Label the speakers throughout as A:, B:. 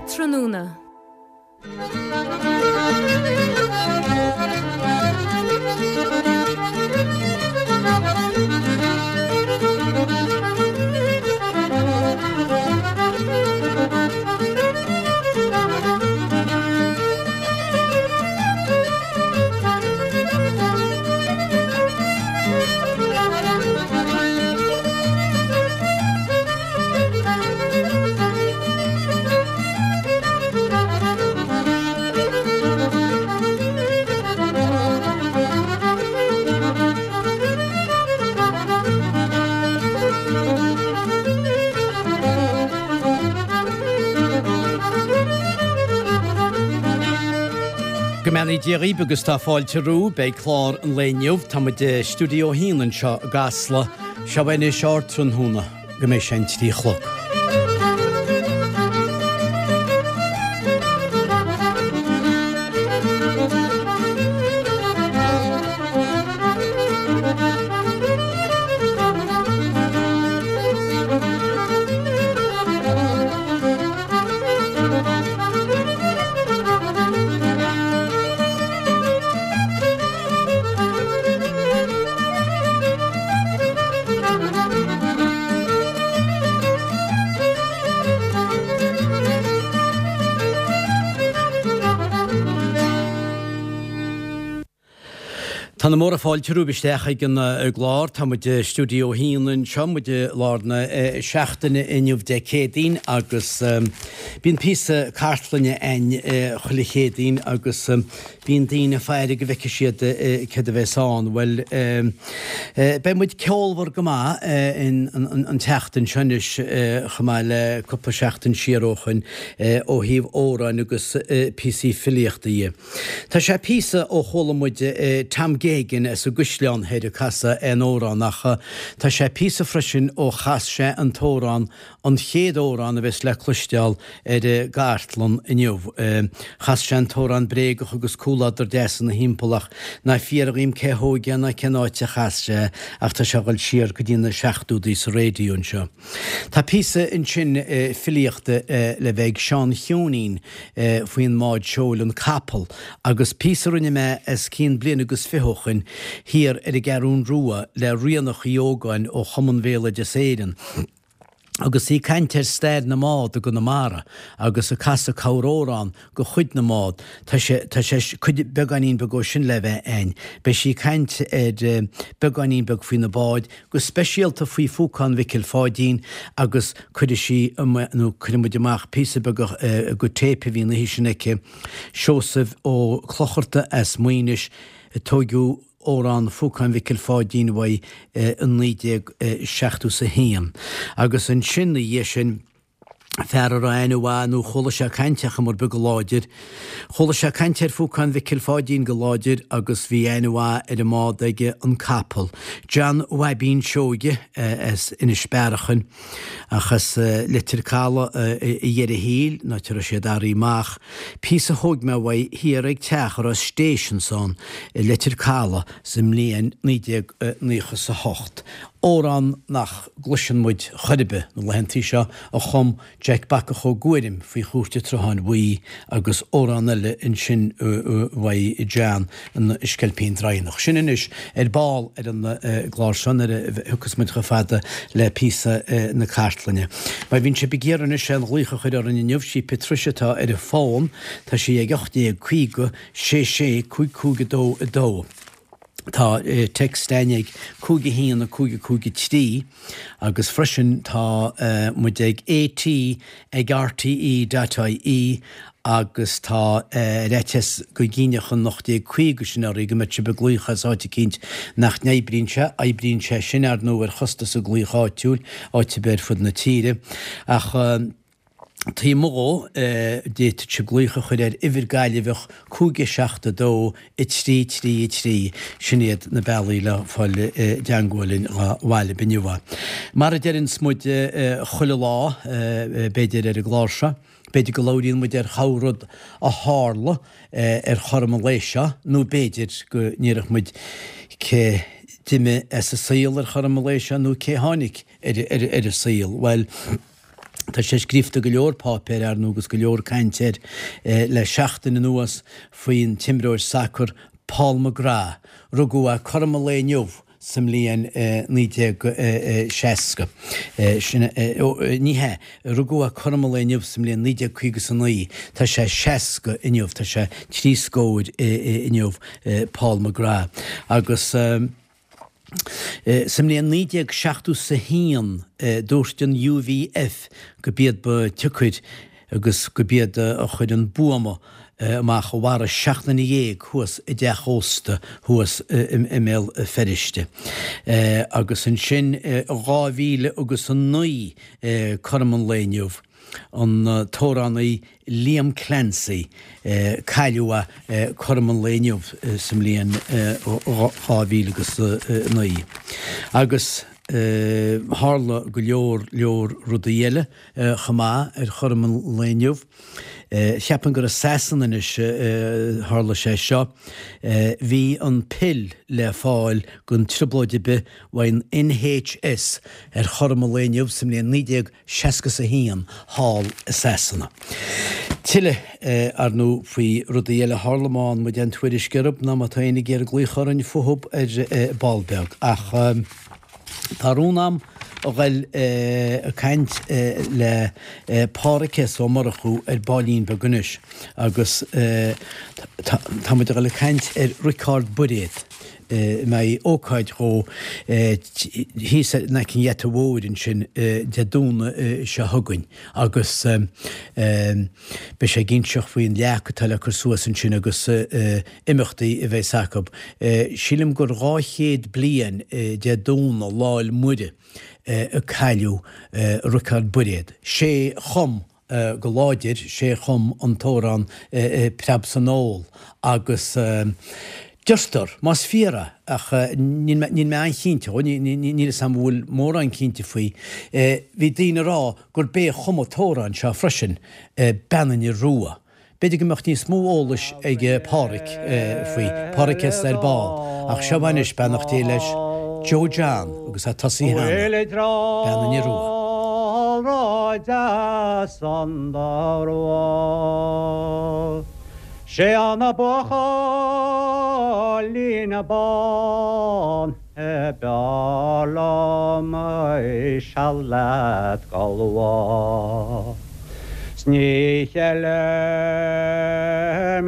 A: Ardtráthnóna.
B: Go mbeannaí Dia dhaoibh agus tá fáilte romhaibh. Beidh clár an lae inniu. Tá muid i Stiúideo 1 anseo i gCasla. Seo anois Ardtráthnóna go mbeidh sé an 3 a chlog. Tá na móra fáilte romhaibh isteach ag an gclár. Tá muid i Stiúideo 1 anseo, muid i lár na seachtaine inniu Dé Céadaoin agus bíonn píosa cartlainne a'inn chuile Chéadaoin agus bíonn daoine ag faire go bhfeicfidh siad céard a bheas ann. Bhuel, beidh muid ceolmhar go maith an tseachtain seo anois chomh maith le cúpla seachtain siar ó shoin ó thaobh amhráin agus píosaí filíochta dhe. Tá sé píosa ó chuala muid Tom Geoghegan as an gCaisleán Thoir ag casadh aon amhrán ach tá sé píosa freisin ó chas sé an t-amhrán, an chéad amhrán a bheas le cloisteáil ar an gcartlann inniu. Chas sé an t-amhrán bréagach agus cúladar deas ina thimpeall ach ná fiafraigh dhíom cé thóig é ná cén áit a chas sé ach tá sé ag dul siar go dtí na seachtóidí sa raidió anseo. Tá píosa ansin filíochta le bheith ag Seán Cheoinín faoin mbád seoil An Capall agus píosa a rinne mé os cionn bliain agus fiche ó shoin thiar ar an gCeathrún Rua le Ríonach Uí Ógáin ó Chumann Bhéaloideas Éireann agus í ag caint ar stair na mbád i gConamara agus ag casadh corramhrán de chuid na mbád. Tá sé, tá sé, cuid, beagáinín beag ó sin le bheith a'inn. Beidh sí ag caint ar beagáinín beag faoi na báid, go speisialta faoi Phúcán Mhicil Pháidín agus cuirfidh sí, nó cuirfidh muid amach píosa beag de téip a bhí an oíche sin aici, Seosamh Ó Clochartaigh as Maínis, a tóigeadh amhrán Phúcán Mhicil Pháidín uaidh i 1971. Agus ansin, 'na dhiaidh sin, fear a raibh aithne mhaith nó chuala sé caint ach mar beag go láidir. Chuala sé caint ar Phúcán Mhicil Pháidín go láidir agus bhí aithne mhaith ar an mbád aige, an capall. John Bhaibín Seoige as Inis Bearachain, ach as Leitir Caladh i dheireadh thiar, an áit a raibh siad athraithe amach. Píosa a thóig mé uaidh thiar ag teach a raibh Stations ann i Leitir Caladh sa mbliain 1998. Amhrán nach gcloiseann muid chor ar bith na laethantaí seo a chum Jack Bacach Ó Guairim faoi Chúirt an tSrutháin Bhuí agus amhrán eile ansin uaidh John, An Sceilpín Draighneach. Sin anois ar ball ar an gclár seo nuair a thiocfas muid chomh fada le píosa na cartlainne. Má bhíonn sibh ag iarraidh anois aon ghlaoch a chur orainn inniu, sí Patricia atá ar an bhfón, tá sí ag 1850 66 55 2 2. Tá text a'inn ag 5 1 5 5 3 agus freisin tá muid ag AT ag RTE dot IE agus tá ar fhaitíos go gcinnfeadh an 1850 sin oraibh go mbeadh sibh ag glaoch as áit eicínt nach n-oibríonn sé. Oibríonn sé sin, ar ndóigh, ar chostas an glaoch áitiúil, áit ar bith ar fud na tíre. Ach. Taobh amuigh dhó, d'fhéadfadh sibh glaoch a chur ar uimhir Gaillimheach 5 7 2 3 3 3. Sin iad na bealaí le fáil i dteangmháil linn dhá mhaith libh inniu. Mar a deireanns muid chuile lá, b'fhéidir, ar an gclár seo, b'fhéidir go labhraíonn muid ar chorr-rud a tharla ar chothrom an lae seo nó b'fhéidir go ndéarfadh muid cé d'imigh as an saol ar chothrom an lae seo nó cé tháinig ar an saol. Bhuel. Tá sé scríofa i go leor páipéir, ar ndóigh, agus go leor cainte air le seachtain anuas faoin t-imreoir sacair Paul McGrath. Rugadh é cothrom an lae inniu sa mbliain 1960. Sin, ní hea, rugadh é cothrom an lae inniu sa mbliain 1959. Tá sé 60 inniu, tá sé trí scór inniu, Paul McGrath. Agus. Sa mbliain 1971 dúirt an UVF go b'iad ba tsiocair agus go b'iad a chuir an buama amach a mharaigh 17 nduine thuas i dteach ósta thuas i mBéal Feirste. Agus ansin i 2009 cothrom an lae inniu, an t-amhránaí Liam Clancy, cailleadh é cothrom an lae inniu sa mbliain 2009. Agus tharla go leor leor rudaí eile chomh maith ar chothrom an lae inniu. Cheapfainn gur i Sasana anois a tharla sé seo. Bhí an pill le fáil gan trioblóid ar bith uaidh an NHS ar chothrom an lae inniu sa mbliain 1961 thall i Sasana. Tuilleadh, ar ndóigh, faoi rudaí eile a tharla má fhaigheann muid aon tuairisc orthu nó má tá éinne ag iarraidh glaoch orainn fúthu ar ball beag. Ach tá rún a'm a ghoil ag caint le Pádhraic S. Ó Murchú ar baillín beag anois agus tá muid a ghoil ag caint ar Riocard Bairéad. mbeidh ócáid dhó thíos in aice an gheata mhóir ansin Dé Domhnaigh seo chugainn agus beidh sé ag inseacht faoin leac atá le cur suas ansin agus imeachtaí a bheas acu. Sílim gur 200 bliain Dé Domhnaigh, Lá 'le Muire, a cailleadh Riocard Bairéad. Sé chum go láidir, sé a chum an t-amhrán Preab san Ól agus deirtear, más fíor é, ach níl mé an-chinnte dhó, níl fhios a'm an bhfuil mórán cinnte faoi, bhí daoine ag rá gurb é a chum an t-amhrán seo freisin, Bean an Fhir Rua. B'fhéidir go mbeadh níos mó eolais ag Pádhraic faoi, Pádhraic S. ar ball, ach seo anois, beannacht Dé leis, Joe John agus é tosaithe cheana, Bean an Fhir Rua.
A: Sé an buachaillín bán a b'fhearr liom seal leat galbha. 'S ní cheilim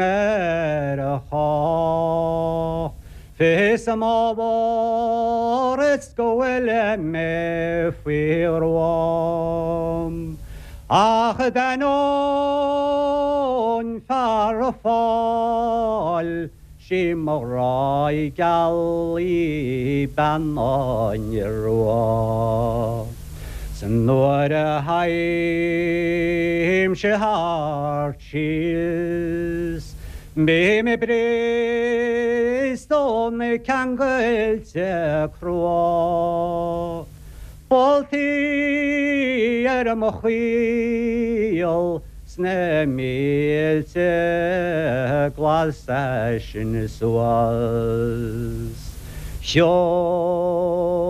A: ar chách Fios m'ábhar is go bhfuil mé faoi ghruaim Ach d'ainneoin fear a fáil 'Sí mo ghrá geal í bean an fhir rua. 'S nuair a théimse thart síos bím briste ó na ceangailte crua. Boltaí ar mo chaol 's na mílte glasa sin suas.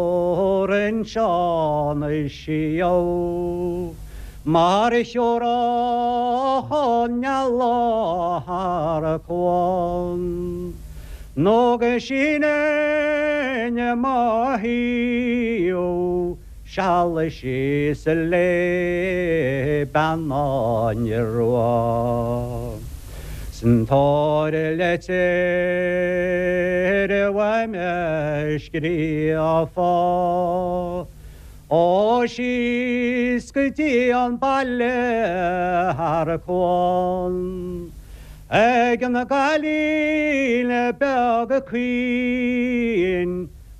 A: Shiúrainn Seán siar mar a shiúrfadh an eala thar cuan, nó go sínfinn mo thaobh Seal síos le bean an fhir rua. 'S an tabhair leitir uaim a scríofa Ó síos go dtí an baile thar cuan Ag an gcailín beag caoin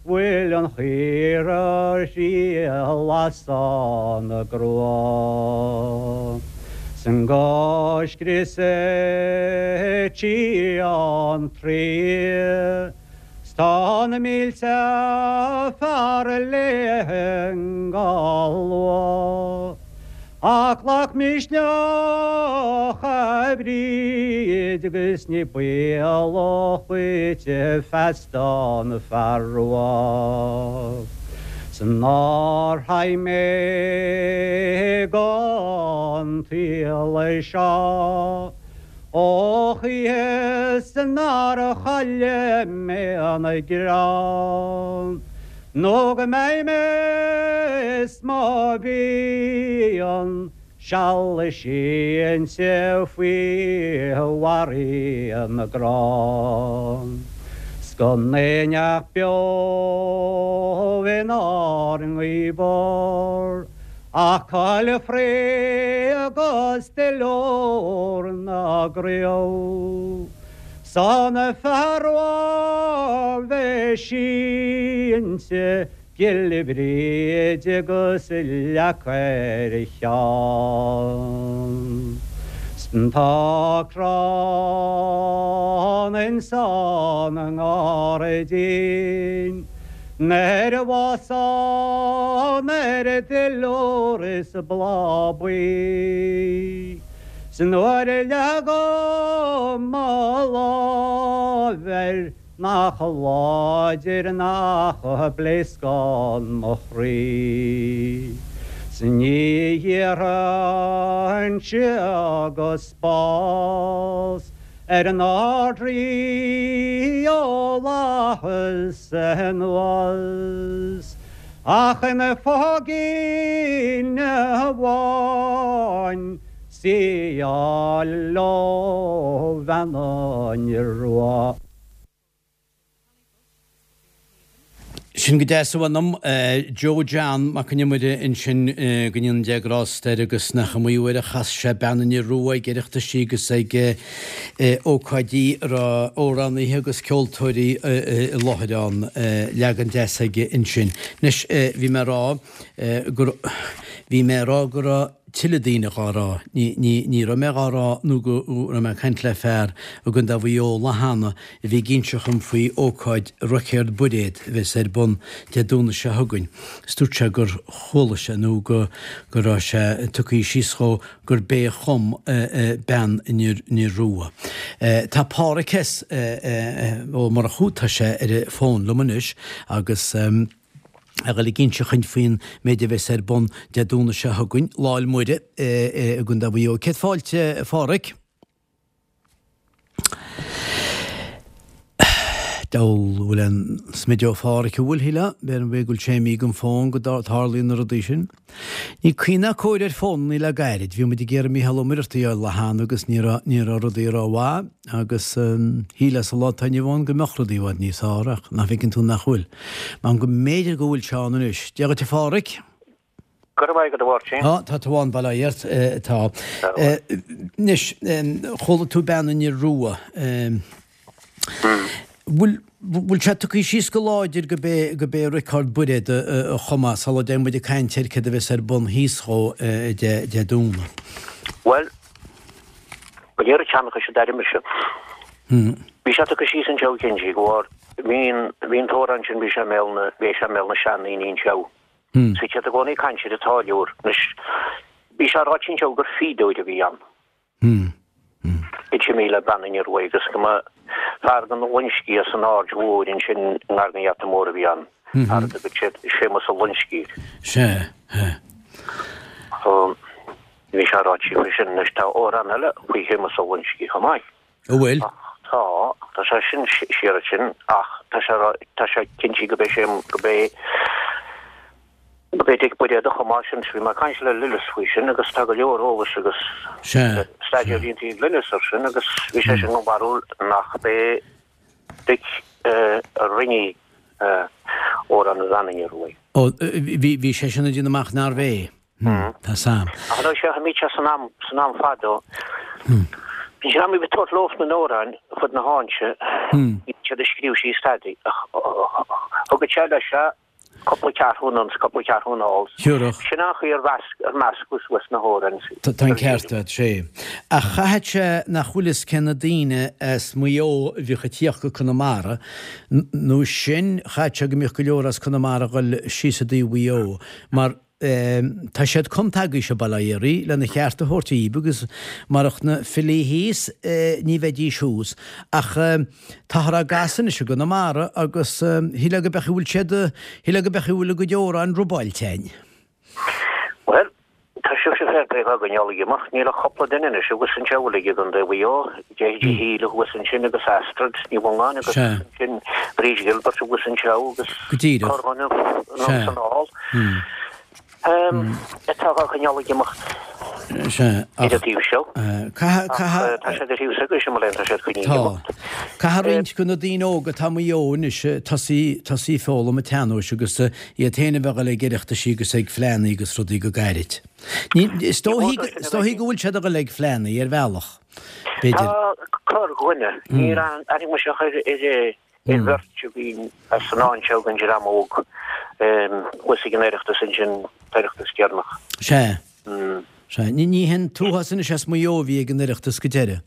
A: bhfuil an chaora thriall as an gcrua 'san go scriosadh tí an Traí 's tá na mílte fear léi nGalwa. Ach glac misneach a Bhríd agus ní baolach dhuit feasta an fear rua 's nár theigh mé go. an tsaol seo. Ó choíche nár chaille mé an grá Nó go mbeidh mé is mo mhian seal sínte faoi bharraí na gcrann 'S gan éinneach beo inár ngaobhar Ach coill fraoigh agus duilliúr na gcraobh 's an fear a bheidh sínte Giolla Bhríde agus leac ar a cheann. 'S tá crann insan ngairdín Nuair a bhfásann air duilliúr is bláth buí. 'S nuair a leagaim mo láimh air nach láidir nach bpléascann mo chroí. 'S ní iarrfainnse agus bás ar an Ard-Rí ó fhlaitheas anuas, ach ina phóigín amháin 's í a fháil ó Bhean an Iorua.
B: Sin go deas a mh'anam. Joe John Mac an Iomaire ansin, go ndéana Dia grásta air agus nach iomaí uair a chas sé Bean an Iorua ag Oireachtaisí agus ag ócáidí a raibh amhránaithe agus ceoltóirí i láthair ann. Leagan deas aige ansin. Anois, bhí mé ag rá go, bhí mé ag rá go raibh tuilleadh daoine dhá rá. Ní, ní, ní raibh mé dhá rá nó go raibh mé ag caint le fear i gContae Mhaigh Eo lá cheana a bhí ag inseacht dhom faoi ócáid Roicéard Bairéad a bheas ar bun Dé Domhnaigh seo chugainn is dúirt sé gur chuala sé nó go go raibh sé tugtha síos dhó gurb é a chum Bean an Iorua. Tá Páraic S. Ó Murchú, tá sé ar an bhfón liom anois agus a dhul ag inseacht dhuinn faoin méid a bheas ar bun Dé Domhnaigh seo chugainn, Lá 'le Muire i gContae Mhaigh Eo. Céad fáilte, a Pháraic. Deabhal bhfuil aon smideadh ó Pháraic an bhfuil, shílfeá? B'fhéidir go bhfuil sé imithe den bhfón go dtarlaíonn na rudaí sin. Ní caoi ná cóir ar fónannaí le gairid. Bhí muid ag iarraidh Mícheál Ó Muircheartaigh a fháil lá cheana agus ní raibh ní raibh rudaí rómhaith agus shílfeá sa lá atá inniu ann go mbeadh rudaí i bhfad níos fearr ach nach bhfeiceann tú nach bhfuil. Measaim go mb'fhéidir go bhfuil sé ann anois. Dia dhuit a Pháraic.
C: Go raibh maith agat a Mháirtín.
B: Tá, tá tú ann, bail ó Dhia ort, tá. Anois, chuala tú Bean an Iorua. Bhfuil, bhfuil sé tugtha síos go láidir go b'é, go b'é Riocard Bairéad a chum é sula dtéann muid ag caint ar céard a bheas ar bun thíos dhó Dé, Dé Domhnaigh?
C: Bhuel, go léir an tseanchais a d'airigh mise. Bhí sé tugtha síos anseo cinnte go bhfuair, bhí an, bhí an t-amhrán sin, bhí sé i mbéal na, bhí sé i mbéal na seandaoine anseo. Bhí siad i gcónaí ag caint ar an táilliúr. Anois, bhí sé ráite anseo gur fíodóir a bhí ann. D'imigh le Bean an Iorua agus go mba fear den Loinscigh as an Aird Mhóir ansin i ngar don Gheata Mór a bhí ann. Fear a dtugadh siad Séamus Ó Loinscigh air.
B: Sea, sea.
C: So, bhí sé ráite faoi sin. Anois, tá amhrán eile faoi Shéamus Ó Loinscigh chomh maith.
B: An bhfuil?
C: Tá, tá sé sin siar ansin ach tá sé tá sé cinnte go b'é sé go b'é go b'é Dick Bairéad a chum é sin. Bhí mé ag caint le Lillis faoi sin agus tá go leor eolais agus staidéar déanta ag Lillis ar sin agus bhí sé sin den bharúil nach b'é Dick a rinne Amhrán Bhean an Ioruaidh.
B: Ó, bhí bhí sé sin ag déanamh amach nárbh é. Tá Sam.
C: Ach an sé bhí sé san am san am fadó. Bhí sé am bhí tabhairt leo na n-amhráin fud na háite. Bhí siad ag scríobh síos stadaí. Thug sé leis se cúpla ceathrú anonn 's cúpla ceathrú anall.
B: Thiúrfadh.
C: Sin an chaoi ar mheasc ar meascadh suas na hamhráin.
B: Tá an ceart agat, sé. Ach chaithfeadh sé nach bhfuil fhios cé na daoine as Maigh Eo a bhíodh ag tíocht go Conamara, nó sin, chaithfeadh sé go mbíodh go leor as Conamara ag dhul síos i dtaobh Mhaigh Eo, mar Tá siad cumtha agaibhse, bail ó Dhia oraibh, lena cheart a thabhairt dhaoib agus marach na filí thíos ní bheidís thuas. Ach táthar á gcasadh anois i gConamara agus shílfeá go beadh a bhfuil siad, shílfeá go beadh a bhfuil a gcuid amhráin robáilte againn.
C: Bhuel, tá sibhse. Fair play dhá gcoinneáil ag imeacht. Níl ach cupla duine anois thuas anseo a bhfuil i gContae Mhaigh Eo, Deirdre Healy thuas ansin agus Astrid Ní Mhongáin agus ansin Bríd Gilbert thuas anseo agus
B: Go díreach.
C: corrdhuine anonn 's anall. Atá dhá gcoinneáil ag imeacht
B: Sea,
C: ar an taobh seo.
B: Caithfidh,
C: Ach
B: caithfidh.
C: tá siad ar thaobh s'agaibhse, mo léan, tá siad coinnithe ag
B: Tá.
C: imeacht.
B: Caithfidh roinnt de na daoine óga atá i Maigh Eo anois tosaí, tosaí ag foghlaim an tsean-nóis agus iad féin a bheith ag dul ag oireachtaisí agus ag fleánnaí agus rudaí go gairid. Ní, is dóichí, is dóichí go bhfuil siad ag dul ag fleánnaí ar bhealach, b'fhéidir.
C: Tá corrdhuine, níor aithnigh mise ach ar, ar, ar bheirt a bhí as an áit seo den dream óg thuas ag an Oireachtas ansin, Oireachtas deireanach.
B: Sea. Sea. Ní, ní hin t-uafás anois as Maigh Eo a bhí ag an Oireachtas go deireadh.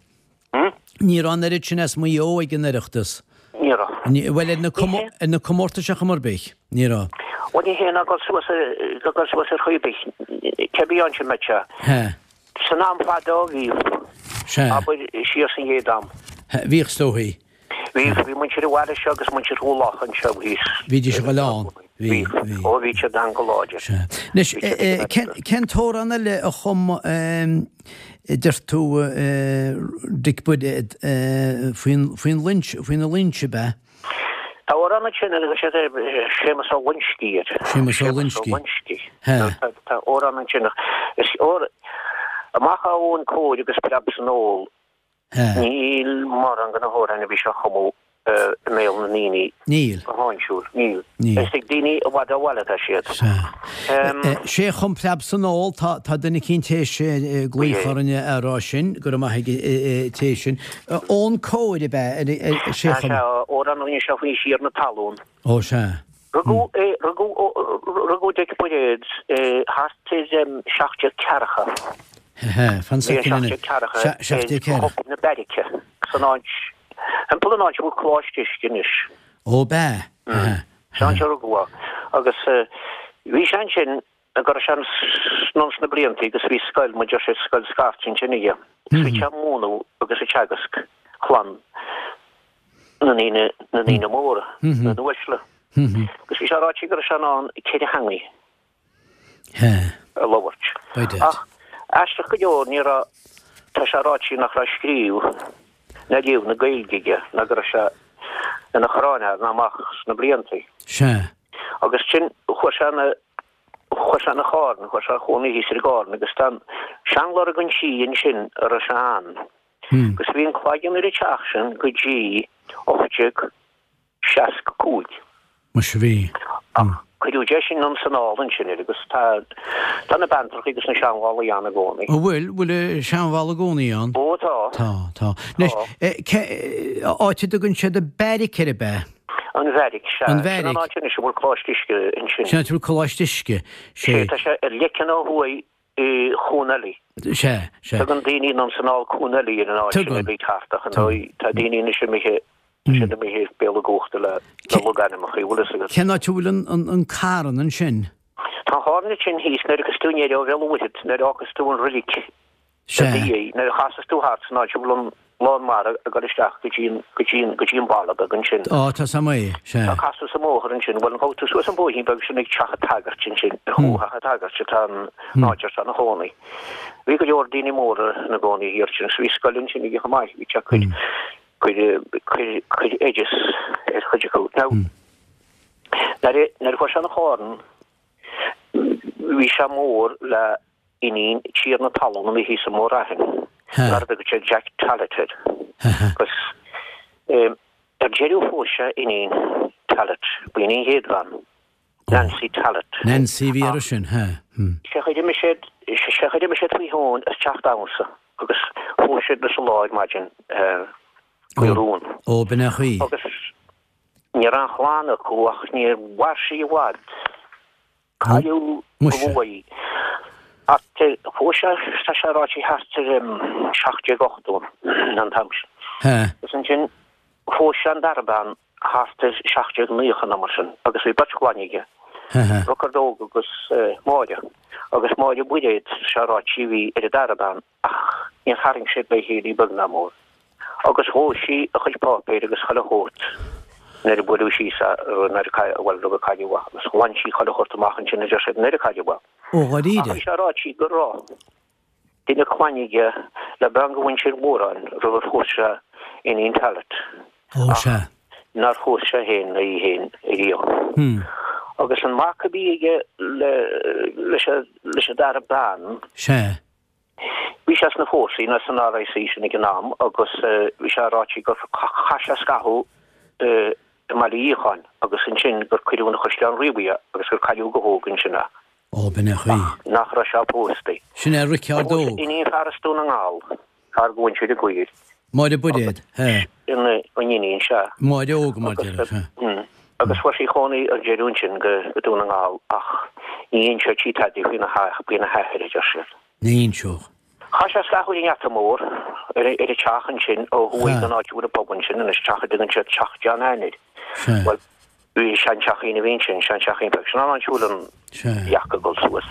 B: Ní raibh an oiread sin as Maigh Eo ag an Oireachtas.
C: Ní raibh.
B: Bhuel, ar na, ar na comórtais ar chuma ar bith, ní raibh.
C: Bhuel, ní hé ná dul suas, dul suas ar chaoi ar bith, cé bith ansin mbeadh sé.
B: He.
C: San am fadó bhíodh.
B: Sea.
C: Abair, siar san gcéad am.
B: He, bhíodh is dóichí.
C: Bhí, bhí muintir an bhaile seo agus muintir Chúil Locha anseo thíos.
B: Bhídís ag dul ann.
C: Bhí, bhí. Ó, bhí siad ann go láidir.
B: Sea. Anois, cén, cén t-amhrán eile a chum, deir tú, Dick Buiréad, faoin, faoin Loins, faoi na Loinsigh, ab ea?
C: Tá amhrán ansin a dtugann siad Séamus Ó Loinscí air.
B: Séamus Ó Loinscí.
C: Séamus Ó Loinscí.
B: He.
C: Tá amhrán ansin ach is, amach ó Eoghan Cóir agus Preab san Ól, Níl mórán de na hamhráin a bhí sé a chumadh i mbéal na ndaoine
B: Níl.
C: go háinsiúil. Níl.
B: Níl.
C: Is ag daoine i bhfad ó bhaile atá siad.
B: Sea. Sé a chum Preab san Ól, tá, tá duine eicínt théis glaoch orainn a rá sin, go raibh maith ag an té sin. Eoghan Cóir ab ea, sé a
C: Sea,
B: chum.
C: sea, amhrán a rinne sé faoin Tiarna Talún.
B: Ó, sea.
C: Rugadh é, rugadh, rugadh Dick Buiréad thart ar 1740.
B: Hehe, fan
C: Bhí
B: soicind anois.
C: 1740
B: 1740.
C: ar Thobar na Beairice, san áit, thimpeall an áit a bhfuil Coláiste Uisce anois.
B: Ó, b'ea. Hehe.
C: San áit a rugadh é. Agus bhí sé ansin go raibh sé anonn sna blianta agus bhí scoil, mar deir siad, scoil scairte ansin aige. Agus bhí sé ag múineadh agus ag teagasc chlann na ndaoine, na ndaoine móra, na n-uaisle. Agus bhí sé ráite go raibh sé in ann ceithre theangaidh a labhairt. Ach aisteach go leor ní raibh, tá sé ráite nach raibh scríobh ná léamh na Gaeilge aige ná go raibh sé ina chráinfhear ná amach sna bliantaí. Agus sin, chuaigh sé ina, chuaigh sé ina Charn, chuaigh sé a chónaí thíos ar an gCarn agus tá an seanlorg an tí ansin a raibh sé ann. Agus bhí an cloigeann ar an teach sin go dtí 1865.
B: Muise bhí.
C: Ach cuireadh deis anonn 's anall ansin air agus tá tá na beanntrachaí agus na seanbhallaí ann i gcónaí.
B: An bhfuil? Bhfuil an seanbhalla i gcónaí ann?
C: Ó tá.
B: Tá, tá. Anois, cé, áit a dtugann siad an Beairic air ab ea?
C: An Bheairic, sea.
B: An Bheairic.
C: Sin an áit anois a bhfuil Coláiste Uisce ansin.
B: Sin áit a bhfuil Coláiste Uisce.
C: Sé, tá sé ar leiceann ó thuaidh i Cuan Eilí.
B: Sea, sea.
C: Tugann daoine anonn 's anall Cuan Eilí ar an áit sin
B: Tugann.
C: a bhí thart ach ar ndóigh tá daoine anois imithe, tá siad imithe as béal a gcumhachta le le logainmneacha, bhfuil fhios agat.
B: Cén áit a bhfuil an, an, an carn ansin?
C: Tá an carn ansin thíos nuair a thiocfas tú aniar ó Bhéal an Mhuirthead, nuair a fhágas tú an roilig
B: Sea.
C: i do dhiaidh, nuair a chasas tú thart san áit a bhfuil an lán mara ag dul isteach go dtí an, go dtí an, go dtí an baile beag ansin.
B: Á, tá 's a'm é, sea.
C: Tá casadh sa mbóthar ansin, bhuel, gabhfaidh tú suas an bóithrín beag sin ag teach an tsagairt ansin, ar chúl theach an tsagairt atá an áit ar tá ina chónaí. Bhí go leor daoine móra ina gcónaí thiar ansin, agus bhí scoil ansin aige chomh maith, bhí sé ag cur, cur, cur, cur oideas ar chuid acu. Now, nuair a, nuair a chuaigh sé 'na Charn, bhí sé mór le iníon tiarna talún a bhí thíos i mBóthar Aithin, mar a dtugadh siad Jack Tallett air. Agus ar deireadh phós sé iníon Tallett, b'in í an chéad bhean, Nancy Tallett.
B: Nancy a bhí uirthi sin, he.
C: Sé chaoi d'imigh siad, sé chaoi d'imigh siad faoi thóin as teach damhsa agus phós siad sa lá ar maidin faoi rún.
B: Ó, b'in é an chaoi.
C: Agus ní raibh aon chlann acu ach níor mhair sí i bhfad. Cailleadh go luath í. Thart ar, phós sé, tá sé ráite thart ar 1780 an t-am sin. Agus ansin phós sé an dara bean thart ar 1790 nó mar sin agus bhí beirt chlainne aige, Riocard Óg agus Máire. Agus Máire Mhuiréad, tá sé ráite, a bhí ar an dara bean. Ach níor tharraing siad le chéile beag ná mór, agus dhóigh sí a chuid páipéir agus chuile shórt nuair a buaileadh síos a, nuair a cailleadh, bhuel, rug a cailleadh í, agus ghlan sí chuile shórt amach ansin, a deir siad, nuair a cailleadh í.
B: Ó, dháiríre?
C: Ach bhí sé ráite go raibh. duine clainne aige le bean de mhuintir Mhóráin roimh ar phós sé Iníon Tallaght.
B: Ó, sea.
C: Nár phós sé féin ná í féin ariamh. Agus an mac a bhí aige le, leis an, leis an dara bean.
B: Sea.
C: Bhí sé sna fórsaí, nó san RIC sin ag an am, agus bhí sé ráite gur chaith sé scaitheamh i mBaile Fhiacháin agus ansin gur cuireadh ina Chaisleán Riabhaigh é agus gur cailleadh go hóg ansin é.
B: Ó, b'in é an chaoi.
C: Ach nach raibh sé pósta.
B: Sin é Riceárd
C: Óg. Iníon fear as Dún na nGall, fear de mhuintir an Ghaoir.
B: Máire Buiréad,
C: he. Sin an iníon, sea.
B: Máire Óg, mar déarfá,
C: sea. Agus fuair sí cónaí ar deireadh ansin go Dún na nGall ach ní inseodh sí tada faoina hathair, a deir siad.
B: Ní inseodh.
C: Chaith sé scaitheamh ar an ngeata mór, ar an teach ansin ó thuaidh den áit a bhfuil an pub ansin anois, teach a dtugann siad Teach John Ann air. Bhuel, bhí seanteachín a bhí ansin, seanteachín beag. Sin an áit a bhfuil an leac ag dul suas.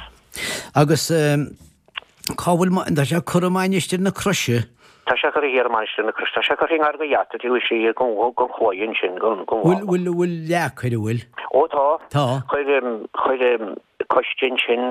B: Agus cá bhfuil, tá sé curtha i Mainistir na Croise?
C: Tá sé curtha thiar i Mainistir na Croise. Tá sé curtha i ngar do gheata taobh istigh den chlaí ansin, den
B: bhalla. Bhfuil, bhfuil leac air, an bhfuil?
C: Ó tá.
B: Tá.
C: Chuir, chuir coiste ansin,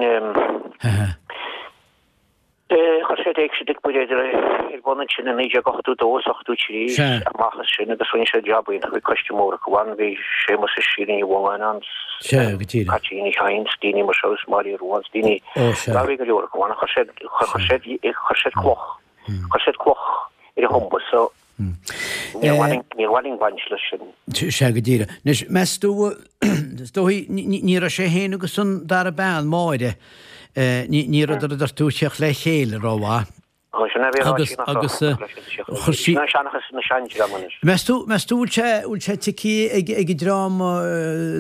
C: chuir siad Éigse Dic Buiréad ar bun ansin i 1982 is 83 amach as sin agus rinne siad jab iontach, bhí coiste mór acu ann, bhí Séamus is Síle Ní Mhongáin ann, Caitríona Ní Chadhain 's daoine mar seo is Máire Rua 's daoine, bhí go leor acu ann, chuir siad, chuir siad, chuir siad cloch, chuir siad cloch ar a thumba so níor mhaith linn baint leis sin.
B: Sea, go díreach. Anois, meas tú, is dóigh, ní raibh sé féin agus an dara bean, Máire, ní rabhadar a deir tú ag tíocht le chéile rómhaith.
C: Agus, agus, chuir sí. Seanchas na seandream anois.
B: Meas tú, meas tú bhfuil sé, bhfuil sé ticthe ag, ag an dream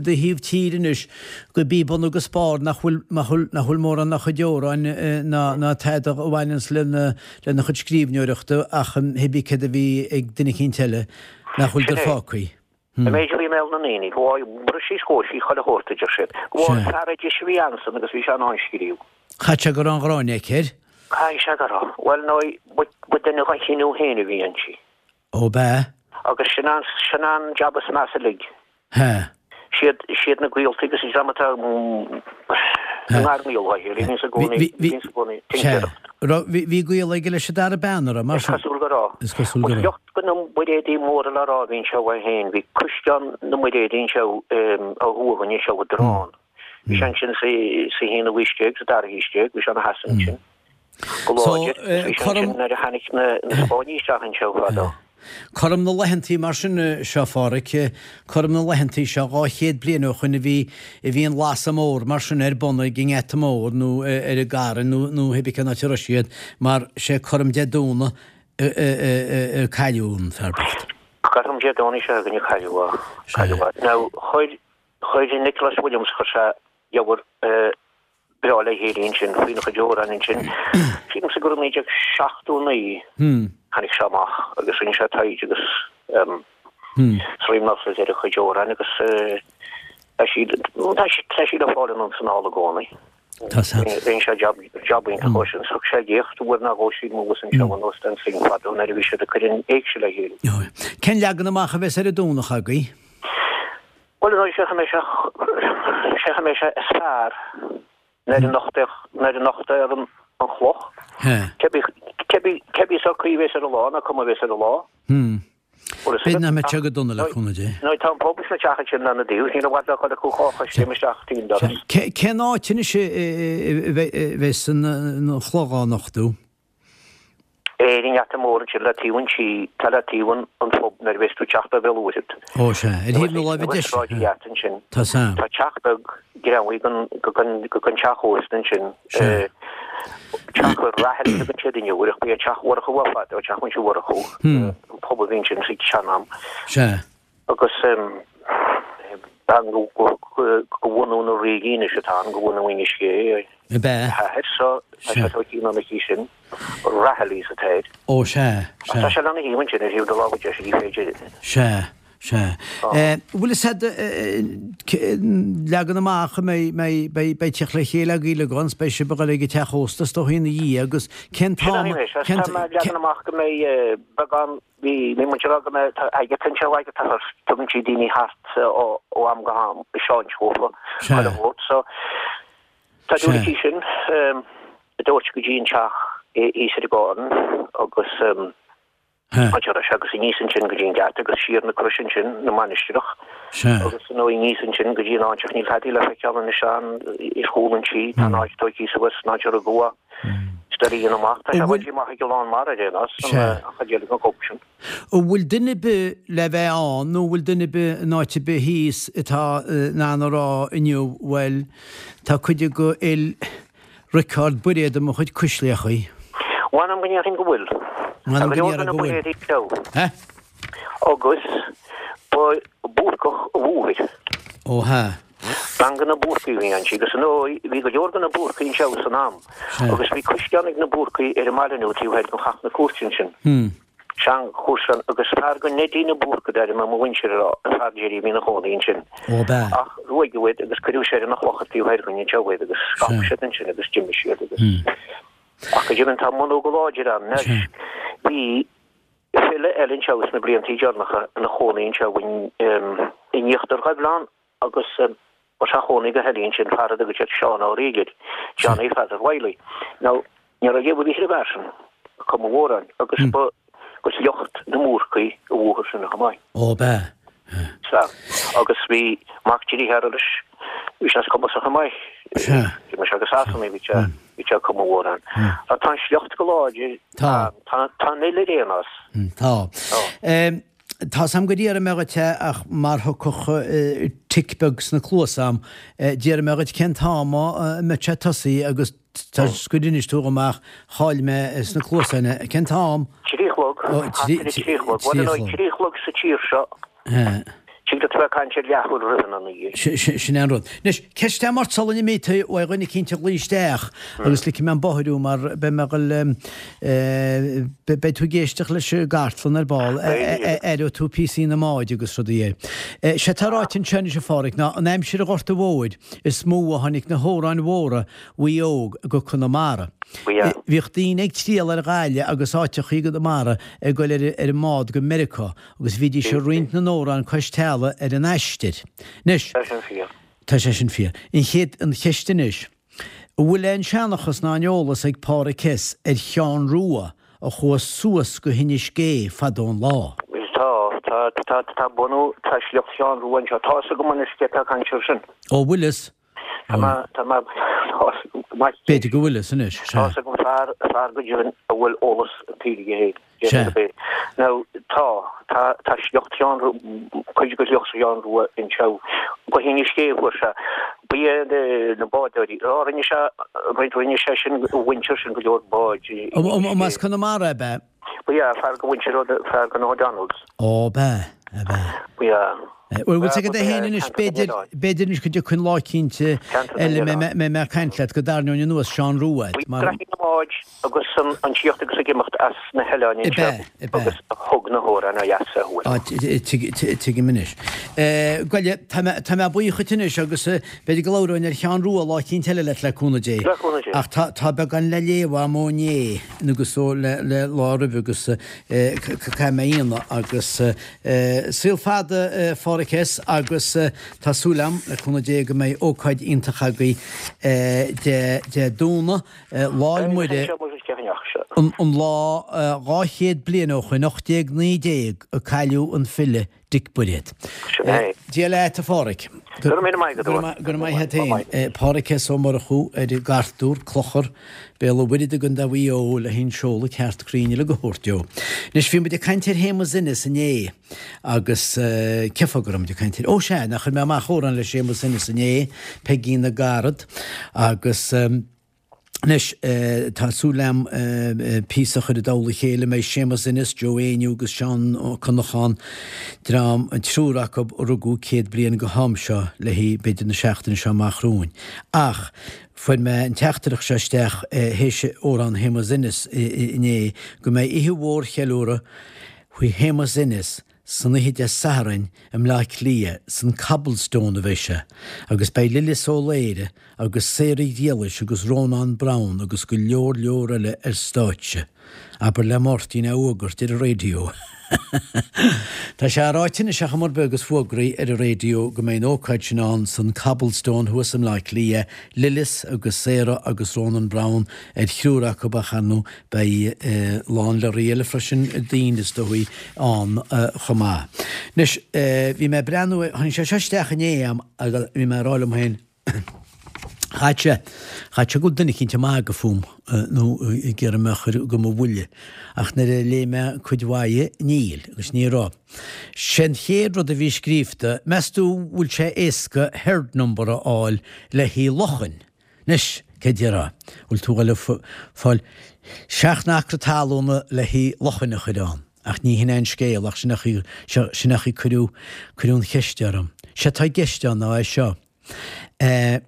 B: do thaobh tíre anois go bí bun agus barr nach bhfuil, nach bhfuil, nach bhfuil mórán dá chuid amhráin ná, ná tada a bhaineanns lena, lena chuid scríbhneoireachta ach thibí céard a bhí ag duine eicínt eile nach bhfuil
C: de
B: fágthaí.
C: An méid a bhí i mbéal na ndaoine, go bhris sí is chomhair sí chuile shórt, a deir siad. Go bhfuair fear oidis a bhí ansan agus bhí sé in ann scríobh.
B: Chaith sé go raibh an ghráin aici air.
C: Caithfidh sé go raibh. Bhuel, nó ba duine dá chineál féin a bhí inti.
B: Ó, b'ea?
C: Agus sin an, sin an jab is measa uilig.
B: Hea.
C: Siad, siad na gaolta agus an dream atá i ngar ngaol dá chéile, bhíonns i gcónaí, bhíonns i gcónaí
B: tincéireacht. Raibh, bhí, bhí gaol aige leis an dara bean, a raibh, mar
C: sin? Is cosúil go raibh.
B: Is cosúil go raibh.
C: Ba shliocht de na Muiréadaigh móra le rá a bhí anseo é féin. Bhí Caisleán na Muiréadaí anseo ó thuaidh againn anseo i dTrán. Bhí sé ansin sa haonú haois déag, sa dara haois déag, bhí sé ina sheasamh ansin go láidir. Bhí sé ansin nuair a tháinig na Spáinnigh isteach anseo fadó.
B: Cothrom na laethantaí mar sin seo, a Pháraic, cothrom na laethantaí seo, 200 bliain ó shoin a bhí, a bhí an lasadh mór mar sin ar bun ag an nGeata Mór nó ar an gCarn nó, nó thibí cén áit a raibh siad, mar sé cothrom Dé Domhnaigh a cailleadh an fear bocht.
C: Cothrom Dé Domhnaigh seo againn a cailleadh é, cailleadh é. Now, chuir, chuir Nicholas Williams, chuir sé leabhar breá le chéile ansin faoina chuid amhrán ansin. Sílimse gur i 1979 tháinig sé amach agus rinne sé taighde agus ríméad ar a chuid amhrán agus tá siad tá siad le fáil anonn 's anall i gcónaí. Rinne sé jab jab iontach ó sin. Thug sé léacht uair nó dhó sílim abhus anseo in Óstán Synge fadó nuair a bhí siad ag cur an éigse le chéile.
B: Cén leagan amach a bheas ar an Domhnach agaibh?
C: Bhuel, ar ndóigh, sé an sé an mbeidh sé is fearr nuair a nochtadh nuair a nochtadh an an chloch. Cébí cébí cébí sórt caoi a bheas ar an lá ná cuma a bheas ar an lá.
B: B'fhéidir nach mbeidh sé go dona le cúnamh Dé.
C: Nó tá an pub is na teach ansin lena dtaobh, níl i bhfad le dhul acu chách a scéim isteach tríd an doras.
B: Cén áit anois a bheas an chloch á nochtadh?
C: Ar an ngeata mór ansin le taobh an tí, tá le taobh an an phub nuair a bheas tú ag teacht ó Bhéal Mhuirthead.
B: Ó sea, ar thaobh na láimhe deise.
C: Sráid an Gheata ansin.
B: Tá san.
C: Tá teach beag greamaithe den den teach ósta ansin.
B: Sea.
C: Teach Raghallaigh a thugann siad inniu air ach ba é Teach Mhurchú é fadó, Teach Mhuintir Mhurchú, an pub a bhí ansin sa tsean-am.
B: Sea.
C: Agus bean de bhunadh na Ríge anois atá ann, de bhunadh Inis Gé,
B: Ab ea?
C: a hathair, so tá sé tógtha anonn aici sin, Raghallaigh atá air.
B: Ó, sea,
C: sea. Tá sé lena thaobh ansin, ar thaobh na láimhe deise, ní féidir.
B: Sea, sea. Bhfuil fhios a'd leagan amach a mbeidh, mbeidh, beidh, beidh teacht le chéile agaibh uilig ann, 's beidh sibh ag dul ag an teach ósta is dóigh ina dhiaidh agus cén
C: t-am,
B: Sin é,
C: cén, tá mé ag leagan amach go mbeidh beagán Bhí bhí muid ag rá go mbeidh tá Agatha anseo Agatha Hurst tugann sí daoine thart ó ó am go ham ag seinnt dhófa chuile shórt so tá dúil aici sin a dtabhairt go dtí an teach. Thíos ar an gCarn agus áit a raibh sé agus aníos ansin go dtí an geata agus siar na Croise ansin, na Mainistreach agus nó aníos ansin go dtí an áit ach níl tada le feiceáil anois ann ar chúl an tí, tá an áit tógtha suas, an áit a rugadh é. Is doiligh a dhéanamh amach, tá sé bainte amach ag a lán mara ar aon nós, an chuid eile den chóip sin.
B: An bhfuil duine ar bith le bheith ann nó an bhfuil duine ar bith in áit ar bith thíos atá in ann a rá inniu, bhuel, tá cuid de fhuil Riocard Bairéad i mo chuid cuisleachaí?
C: Mh'anam go ndéarfainn go bhfuil.
B: Mh'anam go ndéarfainn go bhfuil.
C: He? Agus ba Búrcach a mháthair.
B: Ó hea.
C: Bean de na Búrcaigh a bhí inti agus ar ndóigh bhí go leor de na Búrcaigh anseo san am agus bhí caisleán ag na Búrcaigh ar an mbaile nua taobh thoir den Chath na Cúirte ansin. Seanchaisleán agus fear de Neidí na Búrca d'ainm mo mhuintir a raibh fear Jerry a bhí ina chónaí ansin.
B: Ó b'ea.
C: Ach ruaigeadh iad agus cuireadh soir ina chlochar taobh thoir dhúinn anseo iad agus scaip siad ansin agus d'imigh siad agus ach go deimhin tá a mbunú go láidir ann anois. Bhí file eile anseo sna bliantaí deireanacha ina chónaí anseo in Íochtar Ghaibhleán agus ba sé a chónaí go heile ansin fear a dtugadh siad Seán Ó Riaigh air, Johnny Pheadair Wiley. Now, ní raibh léamh ar bith ar an bhfear sin, ag cumadh amhráin, agus ba de shliocht na mBúrcaí a mháthair sin chomh maith.
B: Ó, b'ea?
C: Sea. Agus bhí mac dearthára leis, bhí sé cumasach chomh maith.
B: Sea.
C: D'imigh sé go Sasana, bhí sé, bhí sé ag cumadh amhrán. Tá an sliocht go láidir.
B: Tá.
C: Tá, tá an fhuil ar aon nós.
B: Tá. Tá's a'm gur iarr mé dhuit é ach mar thiocfadh tic beag sna cluasa a'm, d'iarr mé dhuit cén t-am a mbeadh sé tosaithe agus toisc gur inis tú dhom ach chaill mé sna cluasáin é. Cén t-am?
C: 3 a chlog, thart ar a 3 a chlog. Bhuel, ar ndóigh, 3 a chlog sa tír seo. Tig leat a bheith ag caint ar leathuair roimh an 9.
B: Sin é an rud. Anois, ceist agam ort sula n-imí tú uaidh dhuine eicínt a ghlaoigh isteach agus ligfidh mé an bóthar thú mar beidh mé ag dul, beidh tú ag éisteacht leis an gcartlann ar ball, aireoidh tú píosaí na mbád agus rudaí air. Sé atá ráite anseo anois a Pháraic ná an aimsir an Ghorta Mhóir is mó a tháinig na hamhráin mhóra Mhaigh Eo go Conamara. Bhíodh daoine ag triall ar Ghaillimh agus áiteachaí i gConamara ag goil ar an mbád go Meiriceá Agus bhídís ag roinnt na n-amhrán cois teallaigh ar an aistear. Anois.
C: Tá sin fíor.
B: Tá sé sin fíor. An chéad, an cheist anois, an bhfuil aon seanchas ná aon eolas ag Páraic S. ar Sheán Rua a chuaigh suas go hInis Gé fadó an lá?
C: Tá, tá, tá, tá bunú, tá sliocht Sheán Rua anseo. Tá fhios agam anois cé atá ag caint air sin.
B: Ó, bhfuil fhios?
C: Tá mé, tá mé, tá fhios agam go maith.
B: B'fhéidir go bhfuil fhios anois, sea.
C: Tá fhios agam fear, fear go deimhin a bhfuil eolas an tsaoil aige féin.
B: Sea.
C: Now, tá, tá, tá sliocht Sheáin Rua, cuid de shliocht Sheáin Rua anseo. Go hInis Gé a fuair sé. Ba iad na bádóirí. Á, rinne sé, rinne sé sin, a mhuintir sin go leor báid
B: i Inis Gé. As Conamara ab ea?
C: Ba ea, fear de mhuintir, fear de na O'Donnells.
B: Ó, ab ea, ab ea.
C: Ba ea.
B: Bhuel, bhfuil 's agat é féin anois, b'fhéidir, b'fhéidir anois go dtiocfaidh an lá eicínt eile a mbeidh mé ag caint leat go dtarraingeoinn anuas Seán Rua
C: agat, mar. Bhí na báid agus an tíocht agus ag imeacht as na hoileáin
B: anseo
C: agus a thug na hamhráin ó dheas a
B: thuaidh. Á, tuigim anois. Ghoile, tá mé, tá mé buíoch dhuit anois agus b'fhéidir go labhróinn ar Sheán Rua lá eicínt eile leat le cúnamh Dé.
C: Le cúnamh Dé.
B: Ach tá, tá beagán le léamh agam ó inné agus ó le, le lá roimhe agus caithfidh mé a dhéanamh agus Saol fada a Pháraic S. agus tá súil agam, le cúnamh Dé, go mbeidh ócáid iontach agaibh Dé Domhnaigh, Lá'l Muire, an lá 200 bliain ó shoin, 1819, a cailleadh an file Dic Buiréad. Dia leat, a Pháraic.
C: Go raibh míle maith agat.
B: Go raibh maith agat féin. Páraic S. Ó Murchú ar an gCartúr, Clochar, Béal an Mhuirthead i gContae Mhaigh Eo le an seoladh ceart cruinn uilig a thabhairt dó. Anois bhí muid ag caint ar Shéamus Ennis inné agus cén fáth go raibh muid ag caint air? Ó sea, nach chuir mé amach amhrán le Séamus Ennis inné, Peigín na gCarad agus anois tá súil agam píosa a chur i dtoll a chéile, mbeidh Séamus Ennis, Joe Éinniú agus Seán Ó Conacháin, dream, an triúr acu a rugadh 100 bliain go ham seo léi b'fhéidir na seachtaine seo amach romhainn. Ach Fuair mé an teachtaireacht seo isteach théis amhrán Shéamus Ennis inné, go mbeidh oíche mhór cheiliúradh faoi Shéamus Ennis san oíche Dé Sathairn i mBleá Cliath, san Cobblestone a bheidh sé, agus beidh Lillis Ó Laoire agus Sarah Ghriallais agus Rónán Browne agus go leor leor eile ar stáitse. Abair le Máirtín é a fhógairt ar an raidió. Tá sé ráite anois ar chuma ar bith agus fógraithe ar an raidió go mbeidh an ócáid sin ann san Cobblestone thuas i mBleá Cliath, Lillis agus Sarah agus Ronan Browne ar thriúr acu ach ar ndóigh beidh a lán lorry eile freisin daoine is dóigh ann chomh maith. Anois bhí mé ag breathnú, tháinig sé seo isteach inné a'm agus bhí mé ag rá liom féin, Chaithfeadh sé, chaithfeadh sé go bhfuil duine eicínt ag magadh fúm nó ag iarraidh mé a chur go mo bhuille. Ach nuair a léigh mé cuid mhaith dhe, níl, agus ní raibh. Sé an chéad rud a bhí scríobhta, meas tú bhfuil sé éasca herd number a fháil le haghaidh luchain? Anois, cé déarfá? Bhfuil tú ag fáil seacht n-acra talúna le haghaidh luchain a chur ann? Ach ní hin é an scéal, ach sin é sin é chaoi cuireadh, cuireadh an cheist orm. Sé atá i gceist ann ná é seo. Eh,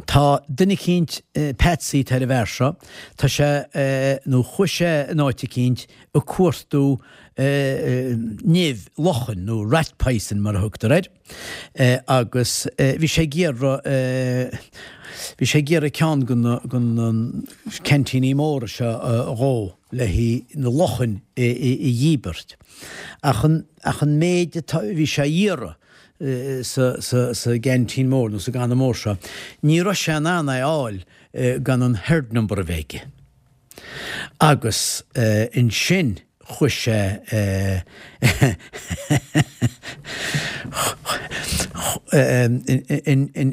B: tá duine eicínt, Patsy atá ar an bhfear seo, tá sé, eh, nó chuaigh sé in áit eicínt ag cuartú eh, nimh luchain, nó rat poison mar a thugtar air, eh, agus eh, bhí sé ag iarraidh, eh, bhí sé ag iarraidh ceann de na, de na ceaintíní móra seo a dhó. le haghaidh na luchain a dhíbirt. Ach an, ach an méid atá, bhí sé a iarraidh sa, sa, sa gceaintín mór nó sa gcanna mór seo, ní raibh sé in ann é a fháil gan an herd number a bheith aige. Agus ansin chuaigh sé